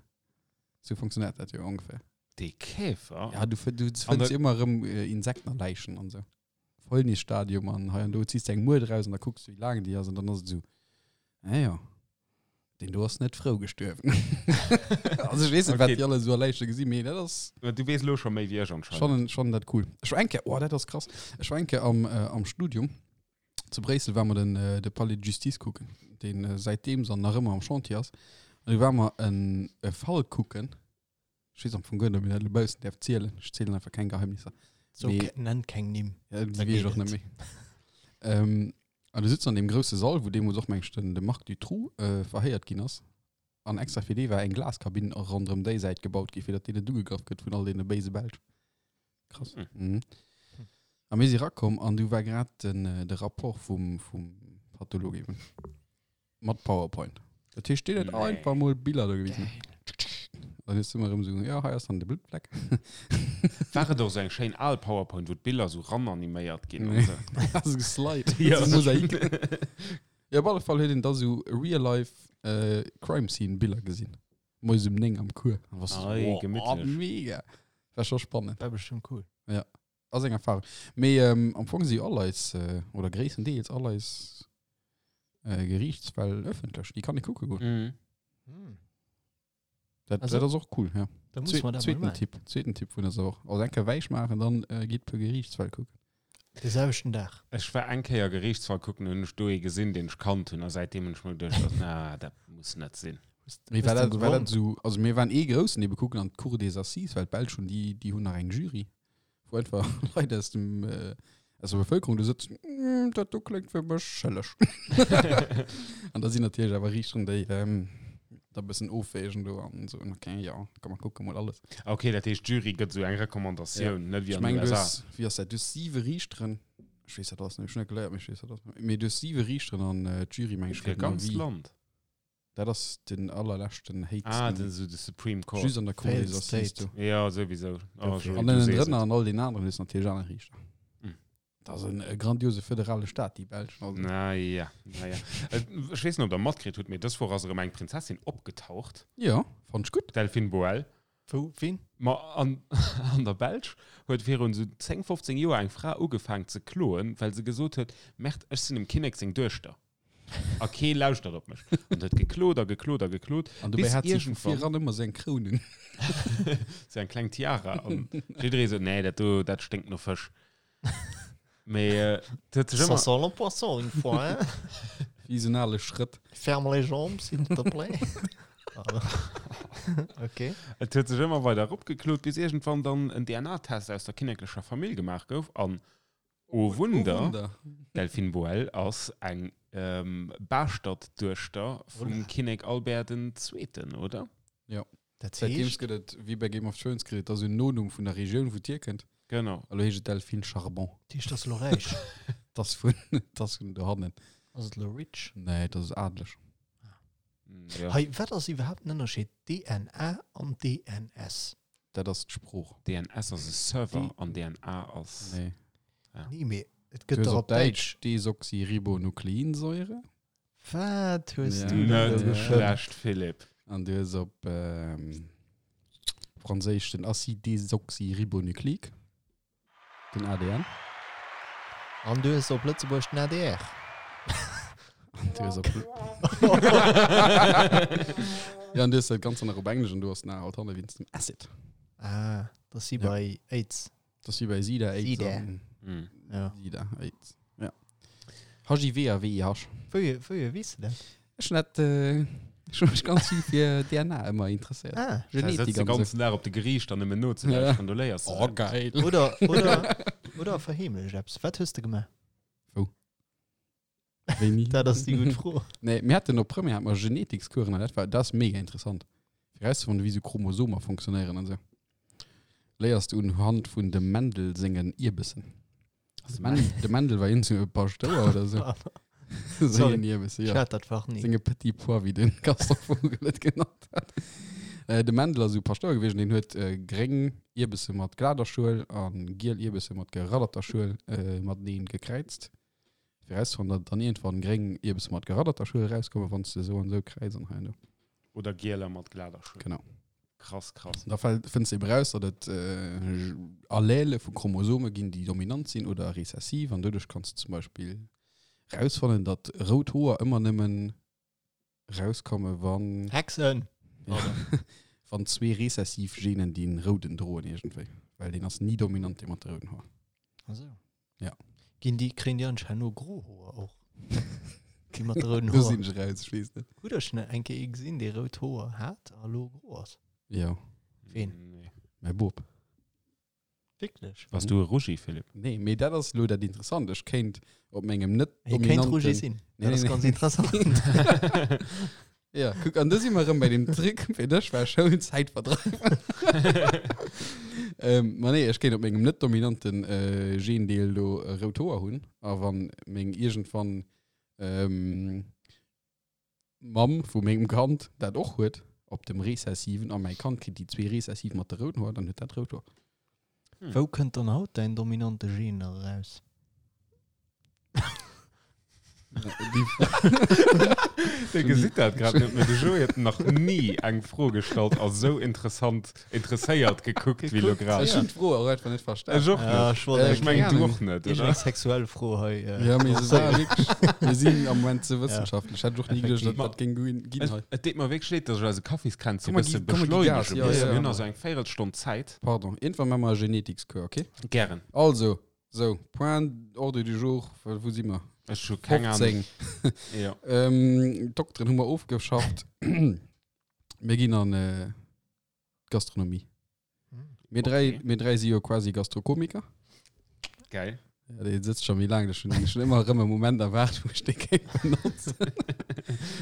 Sou funktionéiert dat jo ongeféier. Dee Käfer? Ja, du, du An fënns der- ëmmer erëm äh, Insekten a Läichen an sou. Fäulnisstadium an hei an do ziehst du eng Muert raus an da kucks du, wéi laang déi ass an dann ass et sou, ah ja, deen do ass net frou gestuerwen. also ech weess net, wat Okay. déi alle sou a Läiche gesinn, mee dat ass Du weess elo scho méi wéi ech anscheinend. schon, schon dat cool. Ech war eng Kéier, oh, dat ass krass, ech war eng Kéier am, äh, am Studium zu Bréissel, war mer den, äh, de Palais de Justice kucken, deen äh, säitdeems an nach ëmmer am Chantier ass. An du war mer en e Fall kucken, Ech weess am Fong guer net, ob een dat elo baussen däerf zielen. Ech zielen einfach keng Geheimnisser. So, Mee- ke- nenn keng Nimm. Ja, déi Da weess ech geet och net et. méi. Ähm, an du sitzt an deem grousse Sall, wou deemools och, meng ech, den, de Marc Dutroux äh, verhéiert ginn ass. An extra fir dee war eng Glaskabinn och ronderëm déi Säit gebaut gi, fir datt deen net ugegraff gëtt vun all deene béise Belsch. Krass. Hm. Mhm. A mir si rakomm an du war grad den, äh, de Rapport vum, vum Patholog eben. Mat PowerPoint. Dat heescht, deen huet Nee. einfach mol Biller do gewisen. Dann hues du ëmmer erëm esou, ja, hei ass dann de Bluttfleck. War et och esou eng schéin al PowerPoint, wou d'Biller esou rananiméiert ginn Nee. an esou? Also geslide. Ja. So Mosaik. Ja, op alle Fall huet een da sou real-life äh, Crime Scene Biller gesinn. Moies um 9 am Cours. An warst du so, Ei, wow, gemittlech. mega. War scho spannend. War bestimmt cool. Ass eng Erfahrung. Mee ähm, am Fong si jo all eis, äh, oder gréisstendeels all eis äh, Geriichtsfäll ëffentlech. Déi kann ee kucke goen. Mhm. Hm. Dat, Also- dat ass och cool, ja. Da muss Zwe man dat mal zweeten machen. Tipp, zweeten Tipp vun der Woch. Also eng Kéier wäich maachen, dann äh, gitt puer Geriichtsfäll kucken. De selwechten Dag. Ech war eng Kéier Geriichtsfall kucken, hunn ech do ee gesinn, deen ech kannt hunn, a säitdeem hunn ech mer geduecht, na, dat muss net sinn. Mee war Hues du dat, war dat gewonnen? so, also mir waren ee groussen ebe kucken an d'Cour des Assises, well d'Belsch hunn déi, déi hunn nach eng Jury, wou einfach Leit aus dem, äh, aus der Bevëlkerung do sëtzen, mm, dat do kléngt fir mech schëlleg. An da sinn natierlech awer Riichteren, déi ähm, da bëssen ofwägen do an soen, okay, ja, komm mer kucke mol alles. Okay, dat heescht, d'Jury gëtt esou eng Recommandatioun, net wéi Ech an meng, den du USA. hues, wéi ass dat, du hues siwe Riichteren, ech weess dat alles net, ech hunn net geléiert, mee ech weess dat alles net, mee du hues siwe Riichteren an äh, d'Jury, meng ech, Fir gëtt en ganz Avis. Land. Dat ass den allerleschten Ah, héchsten. den, so de Supreme Court. Just an der Cour Failed des Assises State. do. Ja, sowieso. Oh, Dofir. Joey, An du ënnen sees drënner et. an all den aneren hues natierlech aner Riichter. Mm. Dat ass en e grandiose föderale Staat, déi Belsch. Also. Na ja, na ja. Äh, Ech weess net, ob der matkritt hutt, mee dës Woch ass erëm eng Prinzessin opgetaucht, Ja, fand ech gutt. d'Delphine Boël. Wou? Wien? Ma an, an der Belsch huet virun esou 10, 15 Joer eng Fra ugefaang ze kloen, well se gesot huet, Merde, ech sinn dem Kinnek seng Duechter. A kee lauschtert op mech. An huet geklot a geklot a geklot. An dobäi Bis hat si vu iergendwann- viran ëmmer seng Kroun un. Sou eng kleng Tiara. An jidderee sot, nee, dat do, dat sténkt no Fësch. Mee äh, et huet sech Ça ëmmer. sent le poisson une fois, hein? Wéi esou en ale Schrëtt. Ferme les jambes, s'il te plaît. Okay. Et huet sech ëmmer weider eropgeklot, bis iergendwann dann en DNA-Test aus der kinneklecher Famill gemaach gouf. An oh Wunder, Oh Wunder. Delphine Boël ass eng ähm, Baaschtert-Duechter vum Voilà. Kinnek Albert den Zweeten, oder? Dat Säitdeems heescht, gëtt et, wéi bei Game of Thrones, kritt et da sou en Nonumm vun der Regioun, wou d'hierkënnt. Genau. Elo heescht et Delphine Charbon. dat heescht, ass lo räich. Dat ass vun, dat ass vun dohannen. Ass et elo rich? Nee, dat ass adeleg. Ja. Hei, wat ass iwwerhaapt den Ënnerscheed DNA an DNS? Dat ass d'Sprooch. DNS ass e Server an DNA ass. Nee. Nee, mee et Du gëtt hues dach op op Däitsch. Däitsch Desoxyribonukleinsäure. Wat hues Ja. du denn Net do geschënnt? schlecht, Philippe. An du hues op ähm, Franséisch den Acide désoxyribonucléique, den ADN. An du hues op Lëtzebuerg den ADR. An du hues op Ja, an du hues dat Ganze nach op Englesch an du hues nach alt hanne wéinst dem Acid. Ah, dat ass wéi Ja. bei AIDS. Dat ass wéi bei Sida, AIDS Sida. an Mm. Ja. Sida, AIDS. Ja. HIV a VIH. Wouhier, wouhier weess de dat? Ech hun dat, äh, ech hun mech ganz vill fir DNA ëmmer interesséiert. Ah. Da Genetik sëtzt de an sou. ganzen Dag op de Geriichter nëmmen nozelauschteren, do léiers de Oh, dat. geil. Oder, oder, oder verheemlecht eppes. Wat hues de gemaach? Wou? Wéini? Dat ass déi gutt Fro. Nee, mir haten op Première hat mer Genetikskuren an dat war, dat ass mega interessant. Fir rauszefannen, wéi sou Chromosomer funktionéieren an sou. Léiers du unhand vun dem Mendel sengen Ierbessen. De Mendel, de Mendel war iergendwou e Paschtouer oder sou. Sorry. Sengen Ierbessen, Ich ja. hat dat Fach nie. Senge Petit Pois, wéi den Gaston Vogel et genannt hat. Äh, de Mendel ass esou Paschtouer gewiescht, deen huet äh, gréng Ierbesse mat glader Schuel an giel Ierbesse mat geradderter Schuel äh, mateneen gekräizt. Fir rauszefannen, datt dann iergendwann gréng Ierbesse mat geradderter Schuel erauskommen, wann s de esou an esou kräiz an hei an do. Oder gieler mat glader Schuel. Genau. Krass, krass. Da fënns de eben raus, datt et äh, Allele vu Chromosome ginn, déi dominant sinn oder rezessiv an doduerch kanns de zum Beispill rausfannen, datt rout Hoer ëmmer nëmmen rauskomme wann Hexen! ja, wann zwee rezessiv Genen deen rouden droen iergendwéi. Well deen ass ni dominant, dee mat de rouden Hoer. Also. Ja. Ginn déi, kréien déi anscheinend no gro Hoer och? Déi mat de rouden Do Hoer. sinn ech raus, ech weess net. Hutt der schon eng Kéier ee gesinn, dee rout Hoer hat a lo gro ass? Jo, Ween? Nee. mäi Bop. Wierklech? Bass du e Rougi, Philippe? Nee, mee dat ass lo dat Interessant. Ech kéint op mengem net Hie kéint Rougi dominanten sinn. Nee, Dat ass nee, ganz nee. interessant. Ja, kuck, an do si mer erëm bei dem Trick, fir dech war Schoul Zäitverdreif. ähm, ma nee, ech kéint op mengem net dominanten äh, Gendeel do äh, rout Hoer hunn. A wann meng iergendwann ähm, Mamm vu mengem Kand dat och huet, op dem rezessiven, a mäi Kand kritt déi zwee rezessiv mat de rouden Hoer, dann huet dat rout Hoer. Wou kënnt dann haut däin dominante Gen nach eraus? Dir gesitt dat grad net, mee de Joé huet nach ni eng Fro gestallt a sou interessant interesséiert gekuckt wéi lo grad. Ech hunn d'Fro och einfach net verstan. Ech och Ja, net. ech wollt Äh, Ech mengen keng du Ahnung. och net, Iergend oder? eng sexuell Fro hei. Äh, Ja, mee se war wierklech, mir sinn am Moment ze wëssenschaftlech. Hätt ech och ni geduecht, Effektiv. datt dat géing ginn Et, hei. et deet mer wierklech leed, dass ech eise Kaffiskränzchen Komm, e mer bësse gi- komm, mer gi Gas, beschleunege ja, muss. ja. Mir hunn also eng Véierelstonn Zäit. Pardon, iergendwann maache mer e Genetikscours, okay? Gären. Also, sou, Point Ordre du jour, wou si mer? Ech hu keng Ahnung. 15. Ja. Ähm, Dokteren hu mer ofgeschafft. Mir ginn an äh, d'Gastronomie. Mir dräi, Okay. mir dräi si jo quasi Gastrokomiker. Geil. Ja, dee sëtzt scho méi laang, ech hunn schon ëmmer erëm e Moment erwaart, wou ech dee kéint benotzen.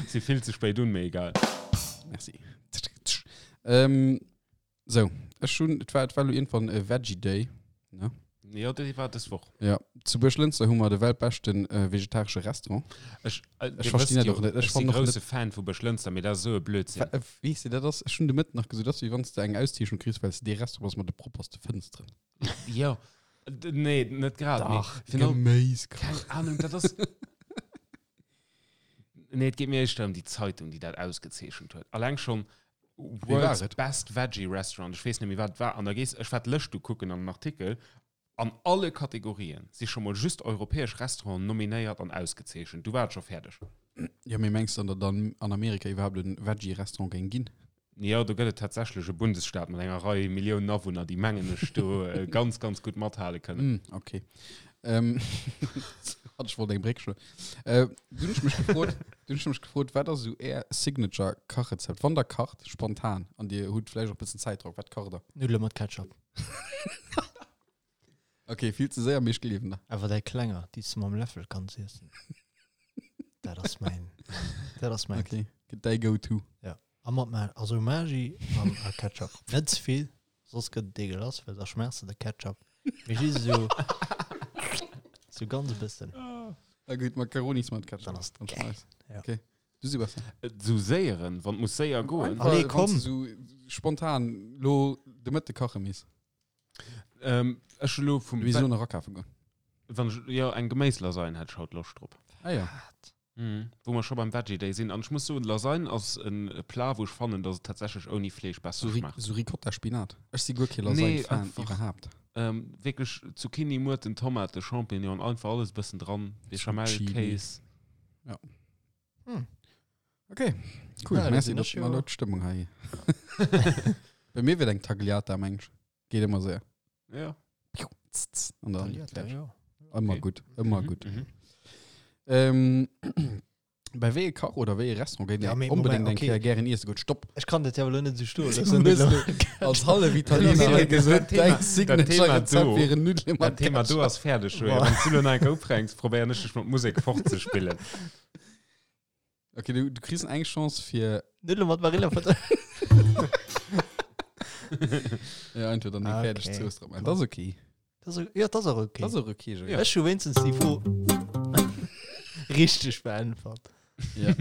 Si vill ze spéit un, mee egal. Merci. Ähm, sou, ech hunn, et war, et war lo iergendwann e Veggie Day. Ne? Jo, déi war dës Woch. Ja, zu Buerglënster hu mer de weltbeschten äh, vegetaresche Restaurant. Ech, äh, Ech verstinn dat och net. Ech Ech sinn fann och grousse Fan vu Buerglënster, mee dat ass esou e Blödsinn. Wa- äh, Weess de, dat ass, ech hunn de Mëtten nach gesot, dat ass wéi wann s de eng Auszeechnung kriss, well s de dee Restaurant ass mat de propperste Fënsteren. Jo. D- Nee, net grad. mee virun allem- Geméis. Keng Ahnung, dat ass. Nee, et geet mir éischter ëm déi Zeitung, déi dat ausgezeechent huet. Alleng schonn war World's et? Best Veggie Restaurant, ech weess net méi, wat et war. An da gees, ech war d'Lëscht ukucken an den Artikel, An alle Kategorien si scho mol just europäesch Restauranten nominéiert an ausgezeechent. Du war et scho fäerdeg. Jo, mee mengs de dann, datt an an Amerika iwwerhaapt e Veggie-Restaurant géing ginn? Jo, do gëtt et tatsächlech e Bundesstaat mat enger Rei Milliounen Awunner, déi, mengen ech, do ganz, ganz gutt mathale kënnen. Hm, okay. Ähm, hat ech wollt eng Bréck schloen. Äh, du hunn ech mech gefrot, du hunn ech mech gefrot, wat ass esou är Signature-Kachrezept? Wann der kacht, spontan, an dir hutt vläicht och e bëssen Zäitdrock, wat kacht der? Nuddele mat Ketchup. Okay, vill ze séier, mee ech gleewen der. Awer däi klenger, déi s de mam Läffel kanns iessen. Dat ass mäin, dat ass mäin. Okay, gëtt däi Go-To. Ja. A mat Ma also Maggi an a Ketchup. Net ze vill, soss gëtt et deegelass, well da schmerz de de Ketchup. Mee just esou. Sou ganz e bëssen. Ah gutt, Macaronis mat Ketchup. Dann ass Ganz geil. nice. Ja. Okay. Du Sebastian. Sou séieren, wann et muss séier goen. Einfach, Allez, wann komm. du sou spontan lo de Mëtte kache misst. Ähm, ech hu lo vum Wéi so nach akafe goen. Wann ech, jo, eng Geméislasagne hätt ech haut Loscht drop. Ah ja. Mhm. Wou mer scho beim Veggie Day sinn. An ech muss soen, Lasagne ass en Plat, wou ech fannen, dass et tatsächlech ouni Fleesch besser So, Ri schmaacht. so Ricotta Spinat. Ech si guer kee Nee, Lasagne-Fan einfach. iwwerhaapt. Ähm, wierklech Zucchini, Muerten, Tomate, Champignon, einfach alles e bëssen dran. Béchamel, Chili. Kéis. Ja. Hm. Okay, cool. Ja, da Merci, sinn dass ech mer jo- lo d'Stëmmung hei. Bei mir wier et eng Tagliata, meng ech. Geet ëmmer séier. Ja. Piu, tz, tz, an dann Tagliata, fertig. ja. Ëmmer Okay. gutt, ëmmer Mhm, gutt. mhm. Ähm, bei wéi e Kach oder wéi e Restaurant géint Ja, Dir mee onbedéngt Moment, eng okay. Kéier gären iesse goen? Stopp! Ech kann dat ja elo net esou stoen Du loossen. hues lo als hallef Italiener hei gesot, Dat Thema- däi dat Thema Signature-Rezept do- wieren Nuddele Dat mat Thema do Ketchup. ass fäerdeg, Joé. Boah. Wann s du lo nach eng Kéier ufänks, probéieren ech dech mat Musek fortzespillen. Okay, du, du kriss eng Chance fir Nuddele mat Marillefutter. ja, entweder eng Ah, fäerdeg okay. Zooss drop. Dat ass okay. Das ist, ja, das ist auch okay. Dat ass och okay, Joé. Ja. Ech hu wéinstens déi Fro richteg beäntwert. Ja.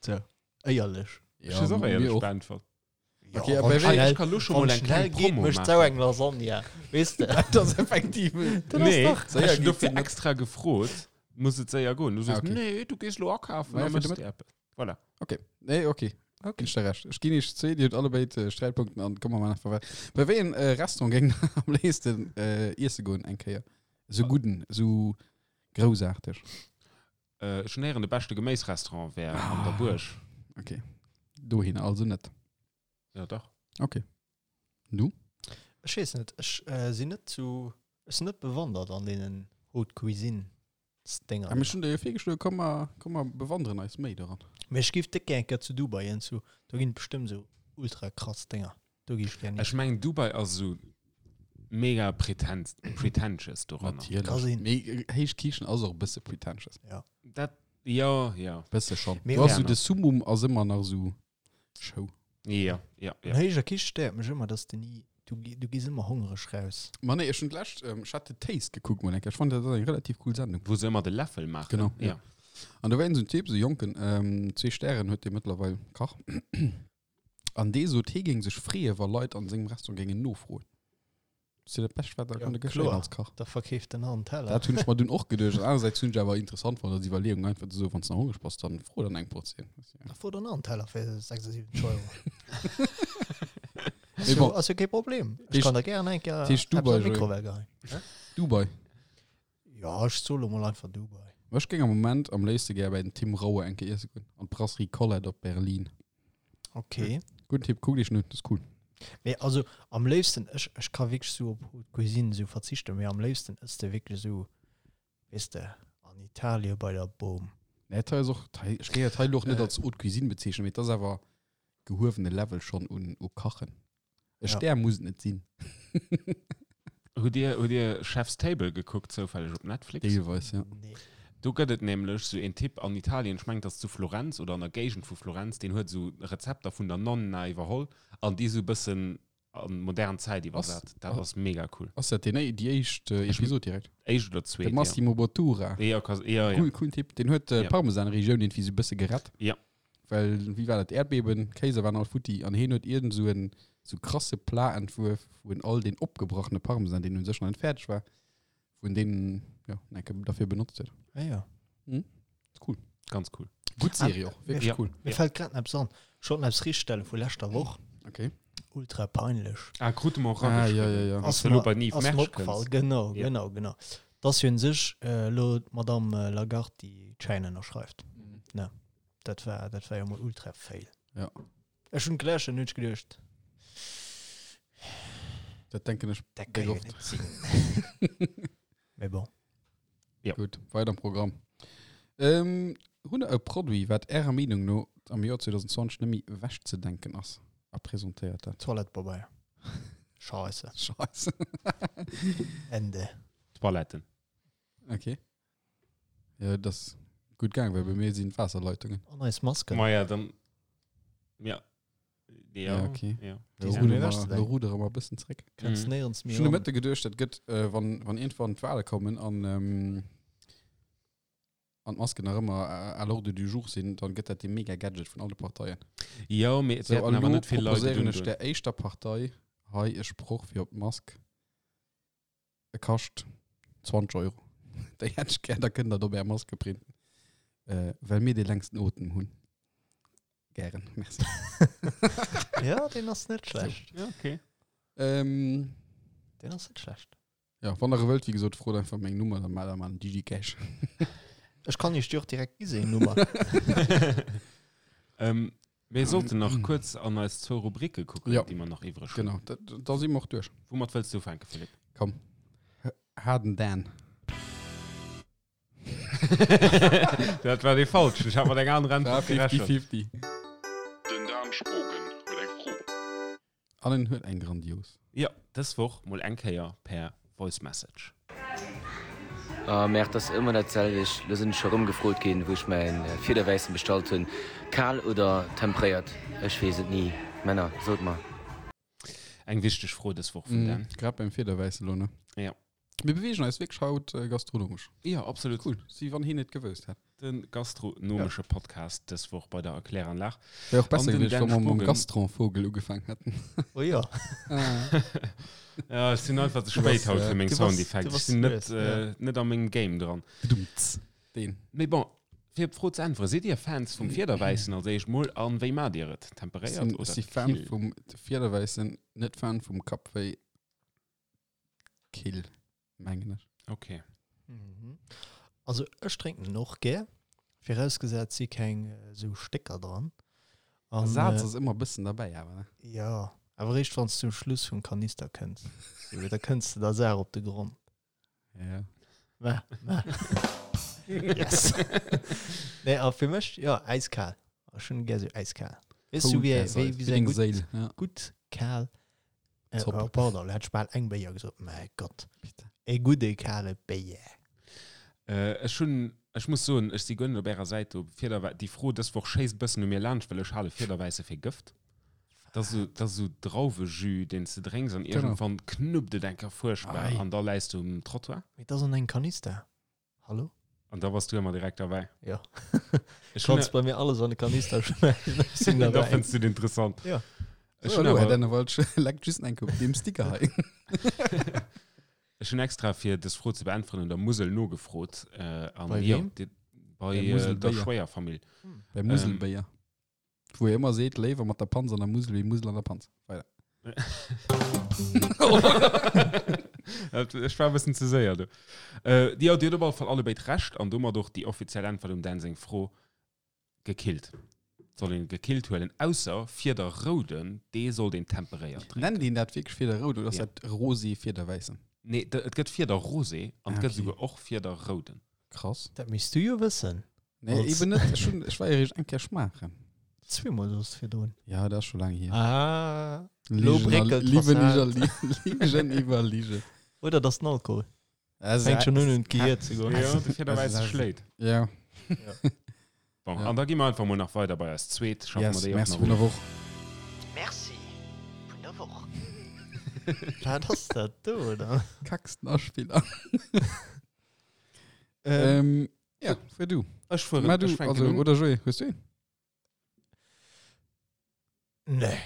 So, éierlech. Ech hues och mir éierlech och. beäntwert. Ja, Okay, wann aber schnell, Ech kann lo schon wann mol eng schnell kleng geet, Promo mécht maachen. sau eng Lasagne. Weess de? Dat ass effektiv. Dat ass Nee, dach. Séier ech hunn geet dofir net. extra gefrot, muss et séier goen. Du Ah, soos, okay. nee, du gees lo akafen, Ma ja, da fir de méchs de eppes. Voilà. Okay. Nee, okay. Okay. Ginn ech der Recht. Ech ginn iech zwee, Dir hutt allebéid äh, Sträitpunkten an komme mer einfach weiter. Bei wéi en äh, Restaurant géing der am léifsten äh, iesse goen eng Kéier? Sou gudden, sou groussaarteg. Äh, ech hunn héieren, de beschte Geméisrestaurant wär an der Ah. Buerg. Okay. Dohin also net. Ja, dach. Okay. Du? Ech weess net, ech äh, sinn net zu, ech sinn net bewandert an deenen Haute Cuisine Dinger. Ah, mir hunn der jo virgeschloen, komm mer, komm mer bewanderen eis méi doran. Mee ech giff déck gär eng Kéier zu Dubai hin, zu, do ginn et bestëmmt sou ultra krass Dinger. Do gi ech gär hin. Ech mengen, Dubai ass esou mega pretent, pretentious doranner. Ka Natierlech. sinn. Mee äh, héich Kichen ass och e bësse pretentious. Ja. Dat, ja, ja. Bësse schon. Mee Du hast och- so de Summum ass ëmmer nach sou Show. Ja, ja, An ja. héijer Kiche stéiert mech ëmmer, dass de ni, du, gi- du gees ëmmer hongreg raus. Ma nee, ech hunn d'lescht, ähm, ech hat The Taste gekuckt mol eng Kéier. Ech fand dat ass eng relativ cool Sendung. Wou se ëmmer de Läffel maachen. Genau, Ja. An do war een sou en Typ, sou jonken, ähm, zwee Stären huet dee mëttlerweil, Kach. An dee sot, hee géing sech freeë wa Leit an sengem Restaurant géingen nofroen. Dat ass jo dat Bescht, wat der Ja, kann geschéien kloer. als Kach. Da verkeeft den an Teller. Dat hunn ech mer dunn och geduecht. Anersäits hunn ech awer interessant fonnt als Iwwerleeung, einfach ze soen, wann s de nach hongreg bass, dann fro dann eng Portioun. Da fro dann an Teller fir 76 Euro. Mee Ass jo, bon. ass jo kee Problem. Ech Heescht- kann der gären eng Kéier heescht eppes Dubai, an Joé? d'Mikrowell geheien. Dubai. Ja, ech soe lo mol einfach Dubai. Ech géing am Moment am léifste gär bei den Tim Raue eng Kéier iesse goen, an d'Brasserie Colette op Berlin. Okay. Gudden Tipp, kuckt iech en un, dat ass cool. Mee also am léifsten, ech, ech ka wierklech sou op Haute Cuisine sou verzichten, mee am léifsten ëss de wierklech sou, weess de, an Italien bei der Boom. Nee, dat hei ass och, dat hei, ech géing dat hei elo och net Äh. als Haute Cuisine bezeechnen, mee et ass awer gehuewene Level schonn un, u Kachen. E Ja. Stär muss et net sinn. Hutt Dir, hutt Dir Chef's Table gekuckt, zoufälleg op Netflix? Deelweis, ja. Nee. Do gëtt et nämlech sou een Typ an Italien, ech mengen et ass zu Florenz oder an der Géigend vu Florenz, deen huet sou Rezepter vun der Nonna iwwerholl an déi sou e bëssen an modern Zäit iwwersat. Dat ass mega cool. Ass dat deen, déi éischt Episod direkt? Éischt oder zweet, De Massimo Bottura. Ja, ka, ja, ja. Cool, coolen Typ. Den huet Ja. d'Parmesan-Regioun irgendwie sou e bësse gerett. Ja. Well, wéi war dat, Äerdbeben, Kéiser waren all futti an heen huet iergend sou en sou krasse Plat entwuerf, wou en all deen opgebrachene Parmesan, deen un sech nach net fäerdeg war, wou en deen, ja, enke derfir benotzt huet. Ah ja. Mhm. Ist cool. Ganz cool. Gutt Serie och, wierklech Ja. cool. Mir fällt grad eppes an. Ech wollt eppes richtstelle vu leschter Woch. Okay. Ultra peinlech. Ah, krute mer och Ah, ja, erageschriwwen. ja, ja. Ass elo bei Nive ass mir Mersch opgefall. kënns. Genau, Ja. genau, genau. Dass jo un sech elo d'Madame Lagarde déi Chaîne ënnerschreift. Ne, dat war, dat war jo mol ultra fail. Ja. Ech hunn geläscht an hunn ech geduecht, Dat denken ech dat déck kann jo oft. net sinn. Mee bon. Ja. Gutt, weider am Programm. Ähm, hunn der e Produit, wat Ärer Meenung no am Joer 2020 net méi ewechzedenken ass? A presentéiert dat. Toilettepabeier. Scheisse. Scheisse. Ende. Toiletten. Okay. Ja, dat ass gutt gaang, well bei mir sinn d'Waasserleitungen. An eis Masken. Ma ja, dann. Ja. Ja, Ja, okay. Ja. Lo Die sind rudere méi mer, ewechzedenken. lo rudere mer e bëssen zréck. Kënns Mhm. néierens méi Ech hunn de ran. Mëtte geduecht, dat gëtt, äh, wann, wann iergendwann d'Wale kommen an ähm, An d'Masken nach ëmmer à l'ordre du jour sinn, dann gëtt dat dee mega Gadget vun alle Parteien. Jo, mee et Sou, wäerten an awer elo net vill Leit et proposéieren ech undoen. der éischter Partei hei e Sproch fir op d'Mask, E kascht 20 Euro. Déi hätt ech gär, da kënnt der et op är Maske printen. Well mir dee längsten Otem hunn. Gären, merci. Ja, deen ass net schlecht. Ja, okay. Ähm, Deen ass net schlecht. Ja, wann der e wëllt, wéi gesot, frot einfach meng Nummer, dann maacht der mal en DigiCash. Ech kann iech déi och direkt gi seng Nummer. Ähm, mir sollten nach kuerz an eis zwou Rubrike kucken, Ja. déi mer nach iwwreg hunn. Genau, da, da si mer och duerch. Woumat wëlls du ufänken, Philippe? Komm, Harden Dan. Dat war dee falschen. Ech hat mat enger anerer War Äntwert gerechent. 50-50. Den Dan Spogen huet eng Fro. An en huet eng grandios. Jo, dës Woch mol eng Kéier per Voice Message. Oh merde, ass ëmmer dat selwecht. Lo sinn ech scho rëm gefrot ginn, wou ech mäin Fiederwäissen bestallt hunn. Kal oder tempréiert? Ech weess et ni. Männer, sot mer. Eng wichteg Fro dës Woch vum Dan. Grad beim Fiederwäissen lo, ne? Ja. Mir beweegen eis wierklech haut gastronomesch. Jo, absolut. Cool. Wéi wann hien et gewousst hätt. De gastronomesche Podcast dës Woch bei der Erkläranlag. Wär och besser An den gewiescht, wa Dan mer mam Spogen. Gastronvogel ugefaang hätten. Oh jo. Ja, ech sinn einfach ze spéit bass, haut fir meng du bass- Soundeffekte. du Ech bass sinn net, lues, ja. äh, net a mengem Game dran. Bedumts. Deen. Mee bon, fir op d'Fro ze äntweren, Sidd Dir Fans vum Fiederwäissen als éischt mol an wéi maacht Dir et? Ech Temperéiert sinn, ech oder si Fan kill? vum Fiederwäissen, net Fan vum Kappwéi. Kill, mengen ech. Okay. Mhm. Also ech drénken en och gär, virausgesat si keng esou Stécker dran. An, Saz äh, ass ëmmer e bëssen derbäi awer, ne? Ja, awer eréischt wann s du um Schluss vum Kanister kënns. So, da kënns de der Saach op de Grond. Ja. Mä, mä. Yes. Nee, a fir mech, ja, äiskal. Ech hunn gär sou äiskal. Weess du, wéi, wéi, wéi sou eng gutt, Séil, ja. gutt kal Äh, Zopp. oh, pardon, hat ech bal eng Béier gesot. Mäi Gott. Bitte. E gudde kale Béier. Äh, ech hunn, ech muss soen, ech si guer net op ärer Säit do. Fiederwä déi Fro dës Woch schéisst bëssen u mir laanscht, well ech hale Fiederwäisse fir Gëft. Dat ass esou, dat ass esou Drauwejus, deen s de drénks an Genau. iergendwann knuppt et eng Kéier fuerchtbar Ei. an da läis du um Trottoir. Mee dat ass an engem Kanister. Hallo? An da bass du ëmmer direkt derbäi. Ja. Ech hunn Kannst bei mir alles an de Kanister schmeißen. Ech sinn Da dabei. fënns du et interessant. Ja. Ech So, hunn hallo, Herr awer, Dennewald, leckt just eng op deem Sticker hei. ech hunn extra fir dës Fro ze beäntweren un der Musel nogefrot. Äh, an Bei jo, wem? di, bei Der äh, der Muselbéier. Schwéierfamill. Bei Muselbéier. Wou e ëmmer seet, léiwer mat der Panz an der Musel wéi Musel an der Panz. Weider. Ech war e bëssen ze séier do. Äh, jo, Dir hutt op alle Fall allebéid Recht an domat och déi offiziell Äntwert um Dan seng Fro, gekillt. Soll een gekillt huelen, ausser Fieder rouden, dee sollt een temperéiert drénken. Nennt een dat wierklech Fieder rout oder ass Ja. dat Rosé Fiederwäissen? Nee, et gëtt Fieder rosé an et Ah, gëtt okay. esouguer och Fieder rouden. Krass. Dat misst du jo wëssen. Nee, Als- eben net. Ech hunn, ech war jo eréischt eng Kéier schmaachen. Zweemol soss virdrun. Ja, dat ass scho laang hier. Ah. Lo Ligen a- bréckelt Liwen d'Fassad. iwwer Li- Ligen iwwer Lige. Oder das den Alkohol. Also, Fänkt schon un un d'Gehier ze goen. Jo, de Fiederwäisse schléit. Ja. Bon, Ja. an da gi mer einfach mol nach weider bei eis zweet. Schaffen Yes, mer déi och merci nach vun der of. Woch. Merci vun der Woch. Wat ass dat do dann? Kacksten Aspiller. Ähm, ja, fuer du. Ech fueren, Mä du, ech fänken also, un. oder Joé, hues du een? Nee.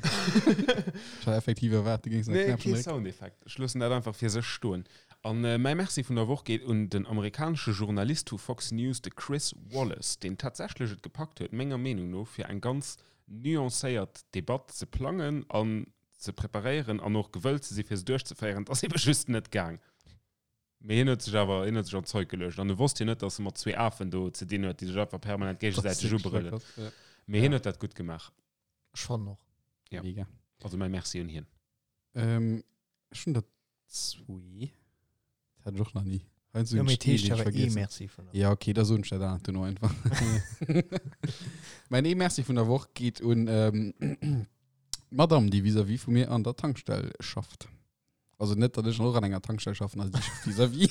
Ech hat effektiv erwaart, du géings nach Nee, Knäppchen kee drécken. Soundeffekt. Ech loossen dat einfach fir sech stoen. An äh, mäi Merci vun der Woch geet un den amerikanesche Journalist vu Fox News, de Chris Wallace, deen tatsächlech et gepackt huet, menger Meenung no, fir eng ganz nuancéiert Debatt ze plangen an ze preparéieren an och gewëllt ze si fir se duerchzeféieren. Et ass ebe just net gaang. Mee hien huet sech awer, hien huet sech an d'Zeug geluecht. An e wosst jo net, datt e mat zwee Afen do ze dinn huet, déi sech einfach permanent géigesäiteg ubrëllen. Ja. Mee hien huet dat gutt gemaach. Ech fannen och. Ja. Mega. Also mäi Merci un hien. Ähm, ech hunn der zwee. Dat hat ech och nach ni. Heiansdo Jo, hunn mee ech et heescht ee, deen ech awer ee vergiessen. Merci vun der Ja, okay, da soen ech dat anert duerno einfach. Mäin ee Merci vun der Woch geet un ähm, d'Madame, déi vis-à-vis vu mir an der Tankstell schafft. Also net, datt ech och an enger Tankstell schaffen, also déi schafft vis-à-vis.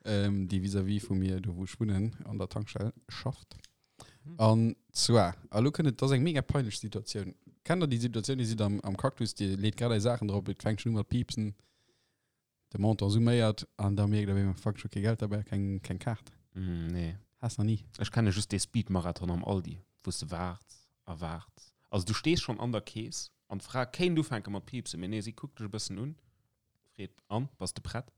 ähm, déi vis-à-vis vu mir, do wou ech wunnen, an der Tankstell schafft. An zwar, a lo kënnt et, dat ass eng mega peinlech Situatioun. Kennt der déi Situatioun, Dir sidd am, am Cactus, Dir leet grad är Saachen drop, et fänkt schon u mat piepsen. De Montant summéiert an da mierkt op eemol, fuck, ech hu kee Geld derbäi, keng, keng Kaart. Mm, nee. Has nach ni. Ech kenne just dee Speed-Marathon am Aldi, wou s de waarts a waarts. Also du stees schonn an der Kees an d'Fra kéint ufänke mat piipsen, mee nee, si kuckt dech e bëssen un, freet, An, bass de prett?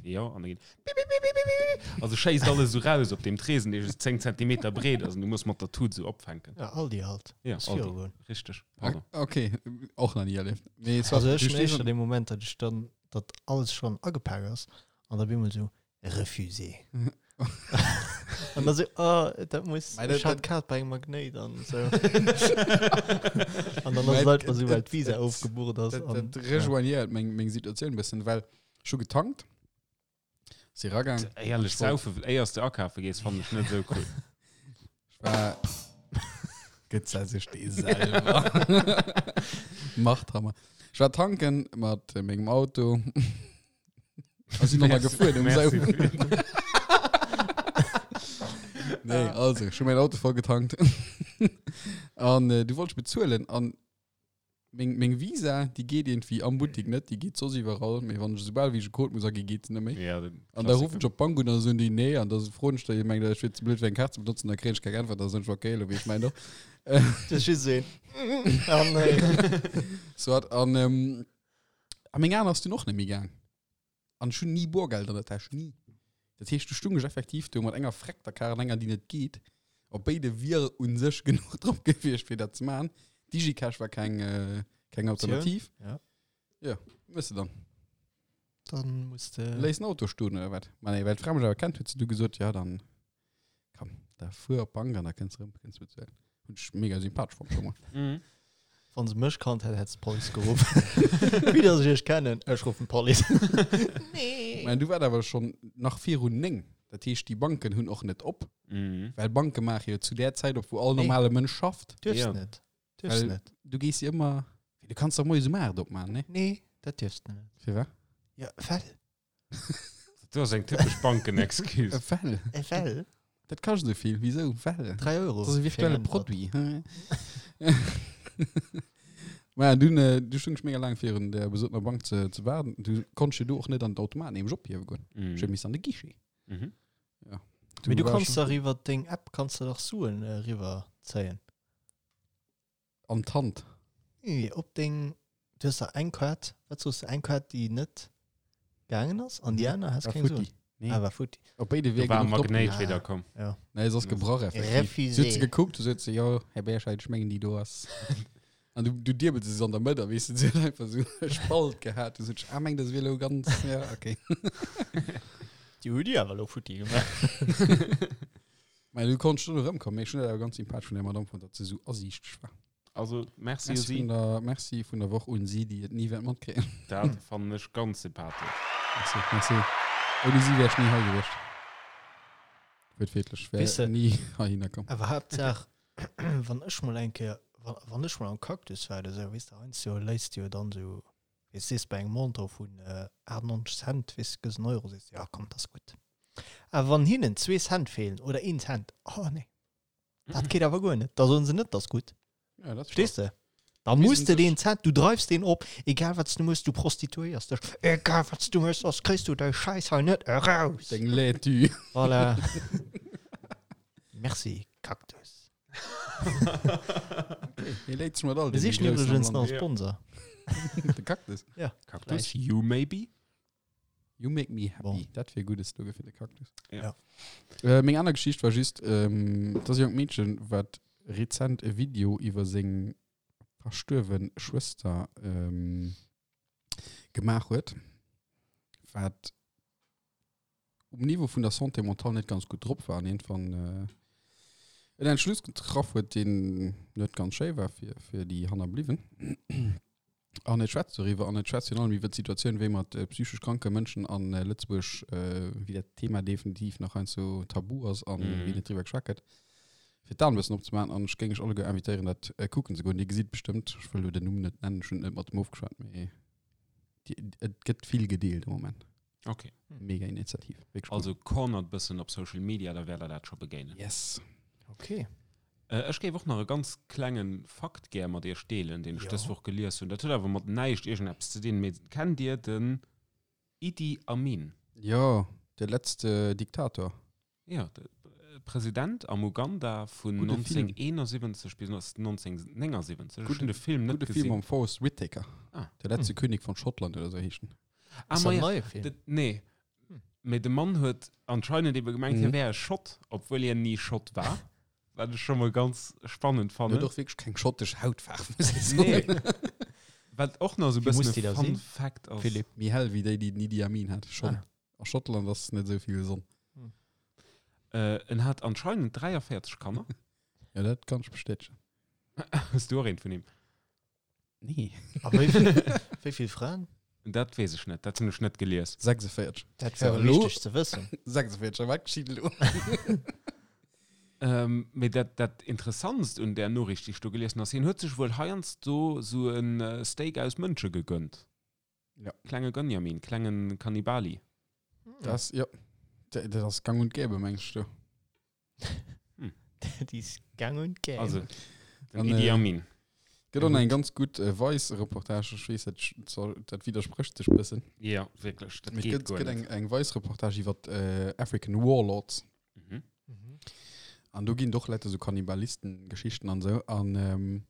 Jo, an da geet pipipipipipip, also schéisst alles esou raus op deem Tresen, dee just 10 Zentimeter breet ass an du muss mat der Tut esou opfänken. Ja, Aldi halt. Ja, Aldi, richteg, pardon. Okay, och nach ni erlieft. Mee soit, Also ech du hunn stees éischter dee Moment, datt ech dann, datt alles schonn agepak ass an da op eemol esou, refusé. An da sou, oh, dat muss, Mä dat- ech hat dat- d'Kaart bei engem Magnéit an esou. An dann ass Mä et einfach esou, well et- d'Visa et- ofgebucht ass. Dat, an- dat rejoignéiert meng, meng Situatioun e bëssen, well ech hu getankt, si ragaang. Éierlech, Ech wollt- saufe, éiers de akafe gees, fannen ech net esou cool. Ech war. Gëtt se sech dee selwer. Machthammer. Ech war tanken mat mengem Auto. A sinn nochmal gefuer um Merci. Saufen. Nee, also, ech hu mäin Auto voll getankt. An äh, du wollt ech bezuelen an meng, meng Visa, déi geet irgendwie am Buttik net, déi geet soss iwwerall, mee wann ech esoubal wéi ech e Code muss aginn, geet se net méi. Ja, den An da Klassiker. ruffen ech op d'Bank un, an da soen déi nee, an da froen ech déi, mengt ech wier ze blöd fir eng Kaart ze benotzen, da kréien ech keng Äntwert, da soen ech okay, elo wéi ech mäin och. Das ist just een. Ah, nee. Soit, an, ähm, a meng aner ass dunn och net méi gaang. An ech hunn ni Boergeld an der Täsch, ni. Dat heescht, du stung ech effektiv do mat enger freckter Kar an enger, déi net geet. Op béide wier u sech genuch drop gewiescht, fir dat ze maachen. Digicash war keng, äh, keng Alternativ. Ja. Ja, wëss de dann. Dann muss de. Léiss den Auto stoen oder wat? Ma nee, well d'Fra mech awer kennt, huet se du gesot, ja dann komm, da fuer op d'Bank an da kënns erëm, kënns bezuelen. Hunn ech mega sympathesch fonnt scho mol. Mhm. Wann se mech kannt hätt, hätt se d'Police geruff. Wéi dass ech iech kennen, ech ruffen d'Police. Nee. Mä du war awer schonn nach virun 9. Dat heescht, déi Banken hunn och net op, Mhm. well Banke maache jo zu där Zäit op, wou all Nee. normale Mënsch schafft. Duerfs Ja. net. Duerfs Well net. du gees jo ëmmer, du kanns doch moies um 8 opmaachen, nee? Nee, dat duerfs de net. Firwat? Ja, well. Dat ass eng typesch Banken-Excuse. Well. Well. Dat kascht esou vill. Wisou? Well. 3 Euro. Dat ass e virtuelle fir eng Äntwert. Produit. Maja, dunn, äh, du stung ech mega laang virun der besotener Bank ze, ze waarden. Du konntest jo do och net an d'Automat nämlech ophiewe goen. Mhm. Ech huet missen an de Guichet. Mhm. Ja. Mee du war kanns schon dach iwwer deng App kanns du dach Suen äh, riwwer zéien. An d'Hand. Nee, op deng, du hues dach eng Kaart, wat soos de, eng Kaart déi net gaangen ass an déi aner has War keng futti. Suen. Nee. Ah, war futti. Op béide Do wier war genuch drop Magnéit Ah. wieder komm. Ja. Nee, se ass gebrach effektiv. Refusé. Se huet se gekuckt, du sot se, jo, Här Berscheid, ech mengen déi do ass. An du, du diebels se an der Mëtt, a weess de, se huet einfach sou e Spalt gehat. Du sot, ah, meng, das wier elo ganz, ja, okay. Déi hu déi awer elo futti gemaach. Mä du konntest schon erëmkommen, mee ech hunn dat awer ganz sympathesch vun der Madame fonnt, datt se sou asiichteg war. Also, merci u Merci si. vun der, merci vun der Woch un si, déi et ni wäert matkréien. Dat fannen ech ganz sympathesch. Merci, merci. Ouni si wär ech ni hei gewiescht. Wuertwiertlech, wär Weess de- ni heihinner komm. Awer Haaptsaach, wann ech mol eng Kéier, wa wann ech mol am Cactus war oder sou, weess de, heiansdo léisst de jo dann sou, weess sees bei engem Montant vun 98 Cent, weess de, gëss en Euro, sees de, ja komm, dat ass gutt. Awer wann hinnen zwee Cent feelen oder een Cent, oh nee, dat geet awer guer net, da soen se net, dat ass gutt. Ja, dat Verstees de? Da Wissen muss de sech- deen Cent, du dreifs deen op, egal wat du mëss, du prostituéiers dech, egal wat du mëss, soss kriss du dei Schäiss hei net eraus. Deng Laitue. Voilà. Merci, Cactus. Hie léit sech mat all Mir deene sichen Groussen am iwwregens nach Land. e Sponsor. De Cactus. Ja. Cactus, you maybe? You make me happy. Bon. Dat wier e gudde Slogan fir de Cactus. Ja. Äh, meng aner Geschicht war just, ähm, dat ass e jonkt Meedchen, wat rezent e Video iwwer seng verstuerwe Schwëster ähm, gemaach huet, wat um Niveau vun der Santé mentale net ganz gutt drop war an iergendwann äh, en Entschluss getraff huet, deen net ganz schéi war fir, fir déi Hannerbliwwen. An et schwätzt doriwwer an et schwätzt virun allem iwwer d'Situatioun, wéi mat psychesch kranke Mënschen a Lëtzebuerg, wéi dat Thema definitiv nach heiansdo tabu ass an wéi net driwwer geschwat gëtt. Fir d'Aen e bëssen opzemaachen an ech géing iech alleguer invitéieren, dat kucken ze goen. Dir gesitt bestëmmt, ech wëll elo den Numm net nennen, ech hunn et net mat em ofgeschwat, mee et gëtt vill gedeelt am Moment. Okay. Mega Initiativ. Wierklech cool. Also cornert bëssen op Social Media, da wäert der dat scho begéinen. Yes. Okay. Äh, ech géif och nach e ganz klengen Fakt gär mat iech deelen, deen ech Jo. dës Woch gelies hunn. Dat huet awer mat näischt iergendeppes ze dinn, mee kennt dir den. Idi Amin. Jo, de letzte Diktator. Jo, de President am Uganda vun Gudde Film. 1971 bis 1979. Ech Gudde, hunn de Film net gudde Film gesinn. mam Forest Whitaker. Ah. Der letzte König von Schottland oder sou heescht en. Ah, Ass ma dat ja, neie Film? de, nee. Mee de Mann huet anscheinend ebe gemengt, hie Mhm. wär e Schott, obwuel hien ni Schott war. Wat ech scho mol ganz spannend En fannen. huet och wierklech keng schottesch Hautfaarf, muss ech soen. Nee. Wat och nach sou e Wie muss bëssen déi e da Fun sinn? Fact ass. Philipp. Méi hell wéi déi, déi den Idi Amin hat. Schonn. Ah. A Schottland ass net esou vill Sonn. Äh, en hat anscheinend 43 Kanner. Ja, dat kann ech bestätegen. Hues du och eent vun him? Nee. A wéi vill, wéi vill Fraen? Dat weess ech net, dat hunn ech net gelies. 46. Dat So, wär elo- wichteg ze wëssen. 46, a wat geschitt elo? Ähm, mee dat, dat Interessantst un där Noriicht, déi ech do gelies hunn, ass, hien huet sech wuel heiansdo sou e Steak aus Mënsche gegönnt. Ja. Klenge Gönjamin, klengen Kannibali. Das, ja. Dat dat ass gang und gäbe, mengs du? Déi ist gang und gäbe. Also, den An, Idi äh, Amin. Gëtt och nach eng ganz gutt äh, Vice-Reportage, ech weess, dat, sch- dat widdersprécht sech bëssen. Ja, wierklech, dat Mee geet et gëtt, guer gëtt net. eng, eng Vice-Reportage iwwer äh, African Warlords. Mhm. Mhm. An do ginn doch Leit so Kannibalisten-Geschichten an sou. An ähm,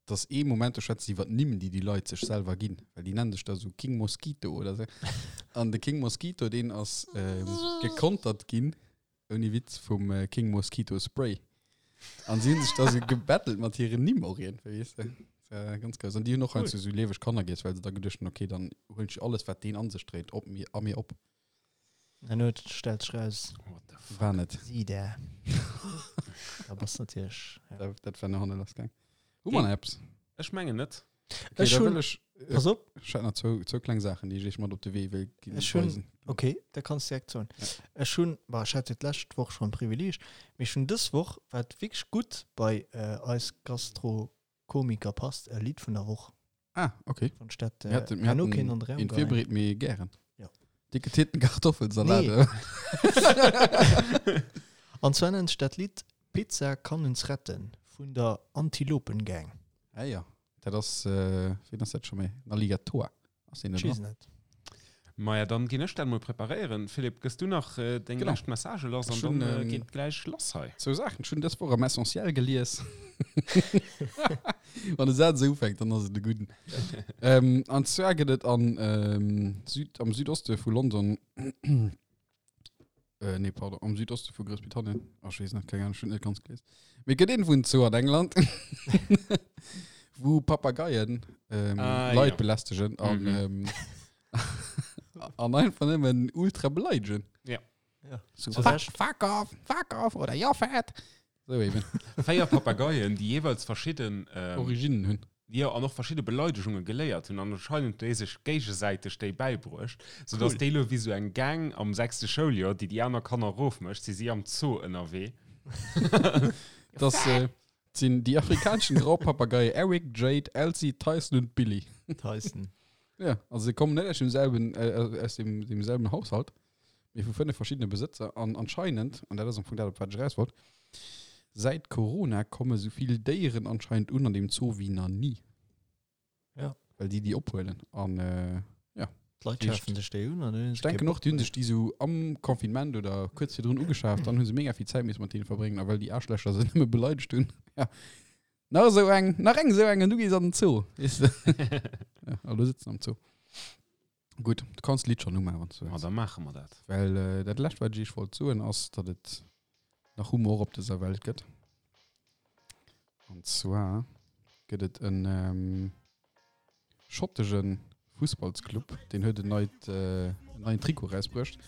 dass ee Moment, do schwätze si iwwer d'Nimm, déi déi Leit sech selwer ginn. Well déi nennen sech da sou King Mosquito oder sou. An de King Mosquito, deen ass ähm, gekontert ginn, ouni Witz, vum äh, King Mosquito Spray. An si hunn sech da sou gebattelt mat hiren Nimm och iergendwéi, weess de. Das war ganz grouss. An déi hunn och Cool. heiansdo sou lieweg Kanner giess, well se da geduecht hunn, okay, dann huelen ech alles, wat deen an sech dréit, op mir, a mir op. An huet stellt sech raus, What the fuck? War net. si där. Da bass natierlech. Ja. Dat, dat war no hanne lass gaang. Hu mer nach eppes? Ech mengen net. Okay, Ech da hunn- wëll ech, äh, Pass op, ech hat nach zwou, zwou kleng Saachen, déi ech iech mat op de Wee wëll ginn. Ech hunn- weisen. okay, da kanns du direkt soen. Ja. Ech hunn, bah, ech hat jo d'lescht Woch schonn Privileeg, mee ech hunn dës Woch, wat wierklech gutt bei äh, eis Gastrokomiker passt, e Lidd vun der Woch. Ah, okay. Wann ech dat Mir äh, hatten, mir herno hatten kéint an de Raum een geheien. virbereet, mee gären. Ja. Dicke Titten Kartoffelsalat. Nee. An zwar nennt sech dat Lidd Pizza kann uns retten vun der Antilopengang. Ah ja, dat ass, äh, wien ass dat scho méi? Den Alligatoah. Ass deen Ech do weess dran? net. Maja, dann ginn ech dat mol preparéieren. Philippe, gëss du nach äh, deng Genau. lescht Message lass an Ech hunn, dann äh, ähm, geet gläich lass hei. Zwou Saachen. Ech hunn dës Woch am Essentiel gelies. Wann de Saz esou ufänkt, dann ass et e gudden. ähm, an zwar gëtt et an, ähm, Süd, am Südoste vu London, äh, nee, pardon, am Südoste vu Groussbritannien, ach, ech weess net, keng Ahnung, ech hunn net ganz gelies. Mee et gëtt een vun Zoo an England, wou Papageien ähm, Ah, Leit ja. belästegen an, Mhm. ähm, an einfach nëmmen ultra beleidegen. Ja. Ja. So, Zu fuck, Recht. fuck off, fuck off oder you're fat. So eben. Véier Papageien, déi jeeweils verschidden ähm, Originen hunn. Jo, an och verschidde Beleidegunge geléiert hunn an anscheinend déi sech géigesäiteg déi bäibruecht, soudass Cool. déi lo wéi sou eng Gang am sechste Schouljoer, déi déi aner Kanner erofmécht, si si am Zoo ënnerwee. Das äh, sinn déi afrikanischen Graupapageie Eric, Jade, Elsie, Tyson und Billy. Tyson. Ja, also se kommen net aus demselben, äh, aus dem, demselben Haushalt, mee vu fënnef verschiddene Besëtzer. An anscheinend, an dat ass am Fong dat, op wat ech eraus wollt, säit Corona komme sou vill Déieren anscheinend un an deem Zoo wéi nach ni. Ja. Well déi déi ophuelen. An äh, ja. D'Leit Heescht- schafen sech déi un an hunn Ech denken och, déi hunn sech déi sou am Confinement oder kuerz virdrun ugeschaaft, dann hu se mega vill Zäit misse mat deene verbréngen, a well déi Aarschlächer se nëmme beleidegt hunn. Ja. Nach esou eng, nach eng esou eng an du gees an den Zoo. Weess de? Ja, a lo sëtzen am Zoo. Gutt, du kanns d'Lidd schonn umaachen, wann s du Ma wëlls. da maache mer dat. Well äh, dat lescht, wat ech iech wollt soen, ass, datt et nach Humor op dëser Welt gëtt. An zwar gëtt et en ähm, schottege Fussballsclub, deen huet en neit, äh, en neien Trikot erausbruecht,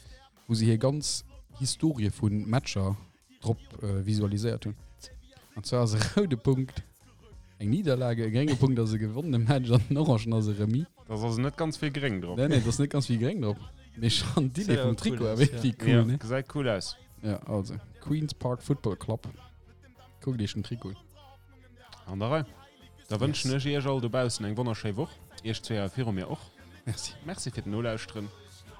wou se hir ganz Historie vu Matcher drop äh, visualiséiert hunn. An zwar ass e roude Punkt eng Niederlage, e grénge Punkt ass e gewonnene Match an den orangen ass e Remis. Da ass also net ganz vill gréng drop. Nee, nee, da ass net ganz vill gréng drop. Mee schon d'Idee Sieht vum aber Trikot cool awer aus, wierklech Ja, cool, ne? gesäit cool aus. Ja, also Queen's Park Football Club. Kuckt iech den Trikot un. An der Rei. Da wënschen ech iech all dobaussen eng wonnerschéi Woch. Iech zwee hei viru mir och. Merci. Merci fir d'Nolauschteren.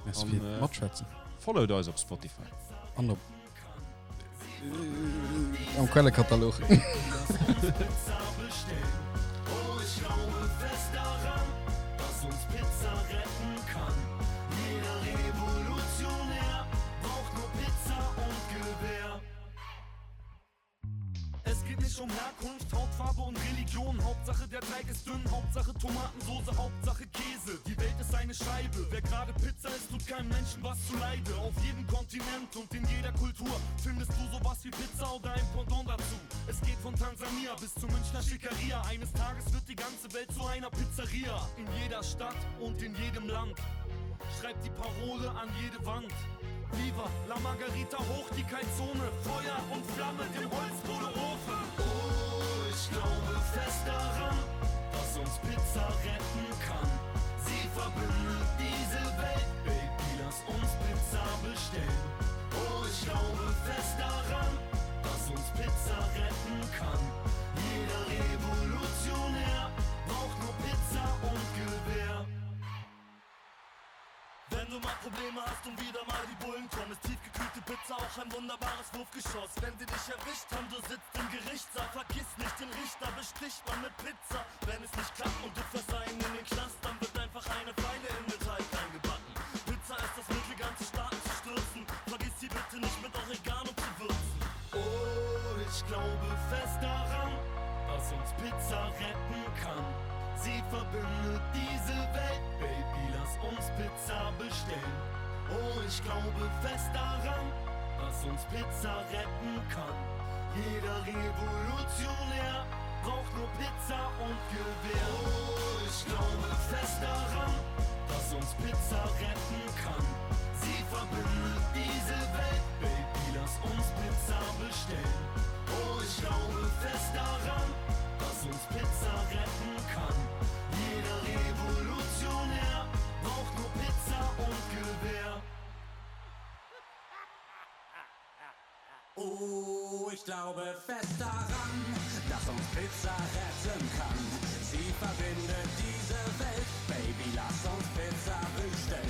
Merci An, fir äh, d'Matschwätzen. Followt eis op Spotify. An op am Quellekatalog. Jeder Revolutionär braucht nur Pizza und Gewehr. Es geht nicht um Herkunft, Hautfarbe und Religion. Hauptsache der Teig ist dünn, Hauptsache Tomatensoße, Hauptsache Käse. Die Welt ist eine Scheibe. Wer gerade Pizza isst, tut keinem Menschen was zu Leide. Auf jedem Kontinent und in jeder Kultur findest du sowas wie Pizza oder ein Pendant dazu. Es geht von Tansania bis zu Münchner Schickeria. Eines Tages wird die ganze Welt zu einer Pizzeria. In jeder Stadt und in jedem Land schreibt die Parole an jede Wand. Viva la Margarita hoch die Kalzone, Feuer und Flamme dem Holzkohleofen. Oh, ich glaube fest daran, dass uns Pizza retten kann. Sie verbindet diese Welt, Baby, lass uns Pizza bestellen. Oh, ich glaube fest daran, dass uns Pizza retten kann. Jeder Revolutionär braucht nur Pizza und Gewehr. Wenn du mal Probleme hast und wieder mal die Bullen kommen, ist tiefgekühlte Pizza auch ein wunderbares Wurfgeschoss. Wenn sie dich erwischt haben, du sitzt im Gerichtssaal, vergiss nicht den Richter, besticht man mit Pizza. Wenn es nicht klappt und du verseien in den Knast, dann wird einfach eine Feile in den Teig eingebacken. Pizza ist das Mittel, ganze Staaten zu stürzen. Vergiss sie bitte nicht mit Oregano zu würzen. Oh, ich glaube fest daran, dass uns Pizza retten kann. Sie verbindet diese Welt, Baby, lass uns Pizza bestellen. Oh, ich glaube fest daran, dass uns Pizza retten kann. Jeder Revolutionär braucht nur Pizza und Gewehr. Oh, ich glaube fest daran, dass uns Pizza retten kann. Sie verbindet diese Welt, Baby, lass uns Pizza bestellen. Oh, ich glaube fest daran, dass uns Pizza retten kann. Jeder Revolutionär braucht nur Pizza und Gewehr. Oh, ich glaube fest daran, dass uns Pizza retten kann. Sie verbindet diese Welt, Baby, lass uns Pizza bestellen.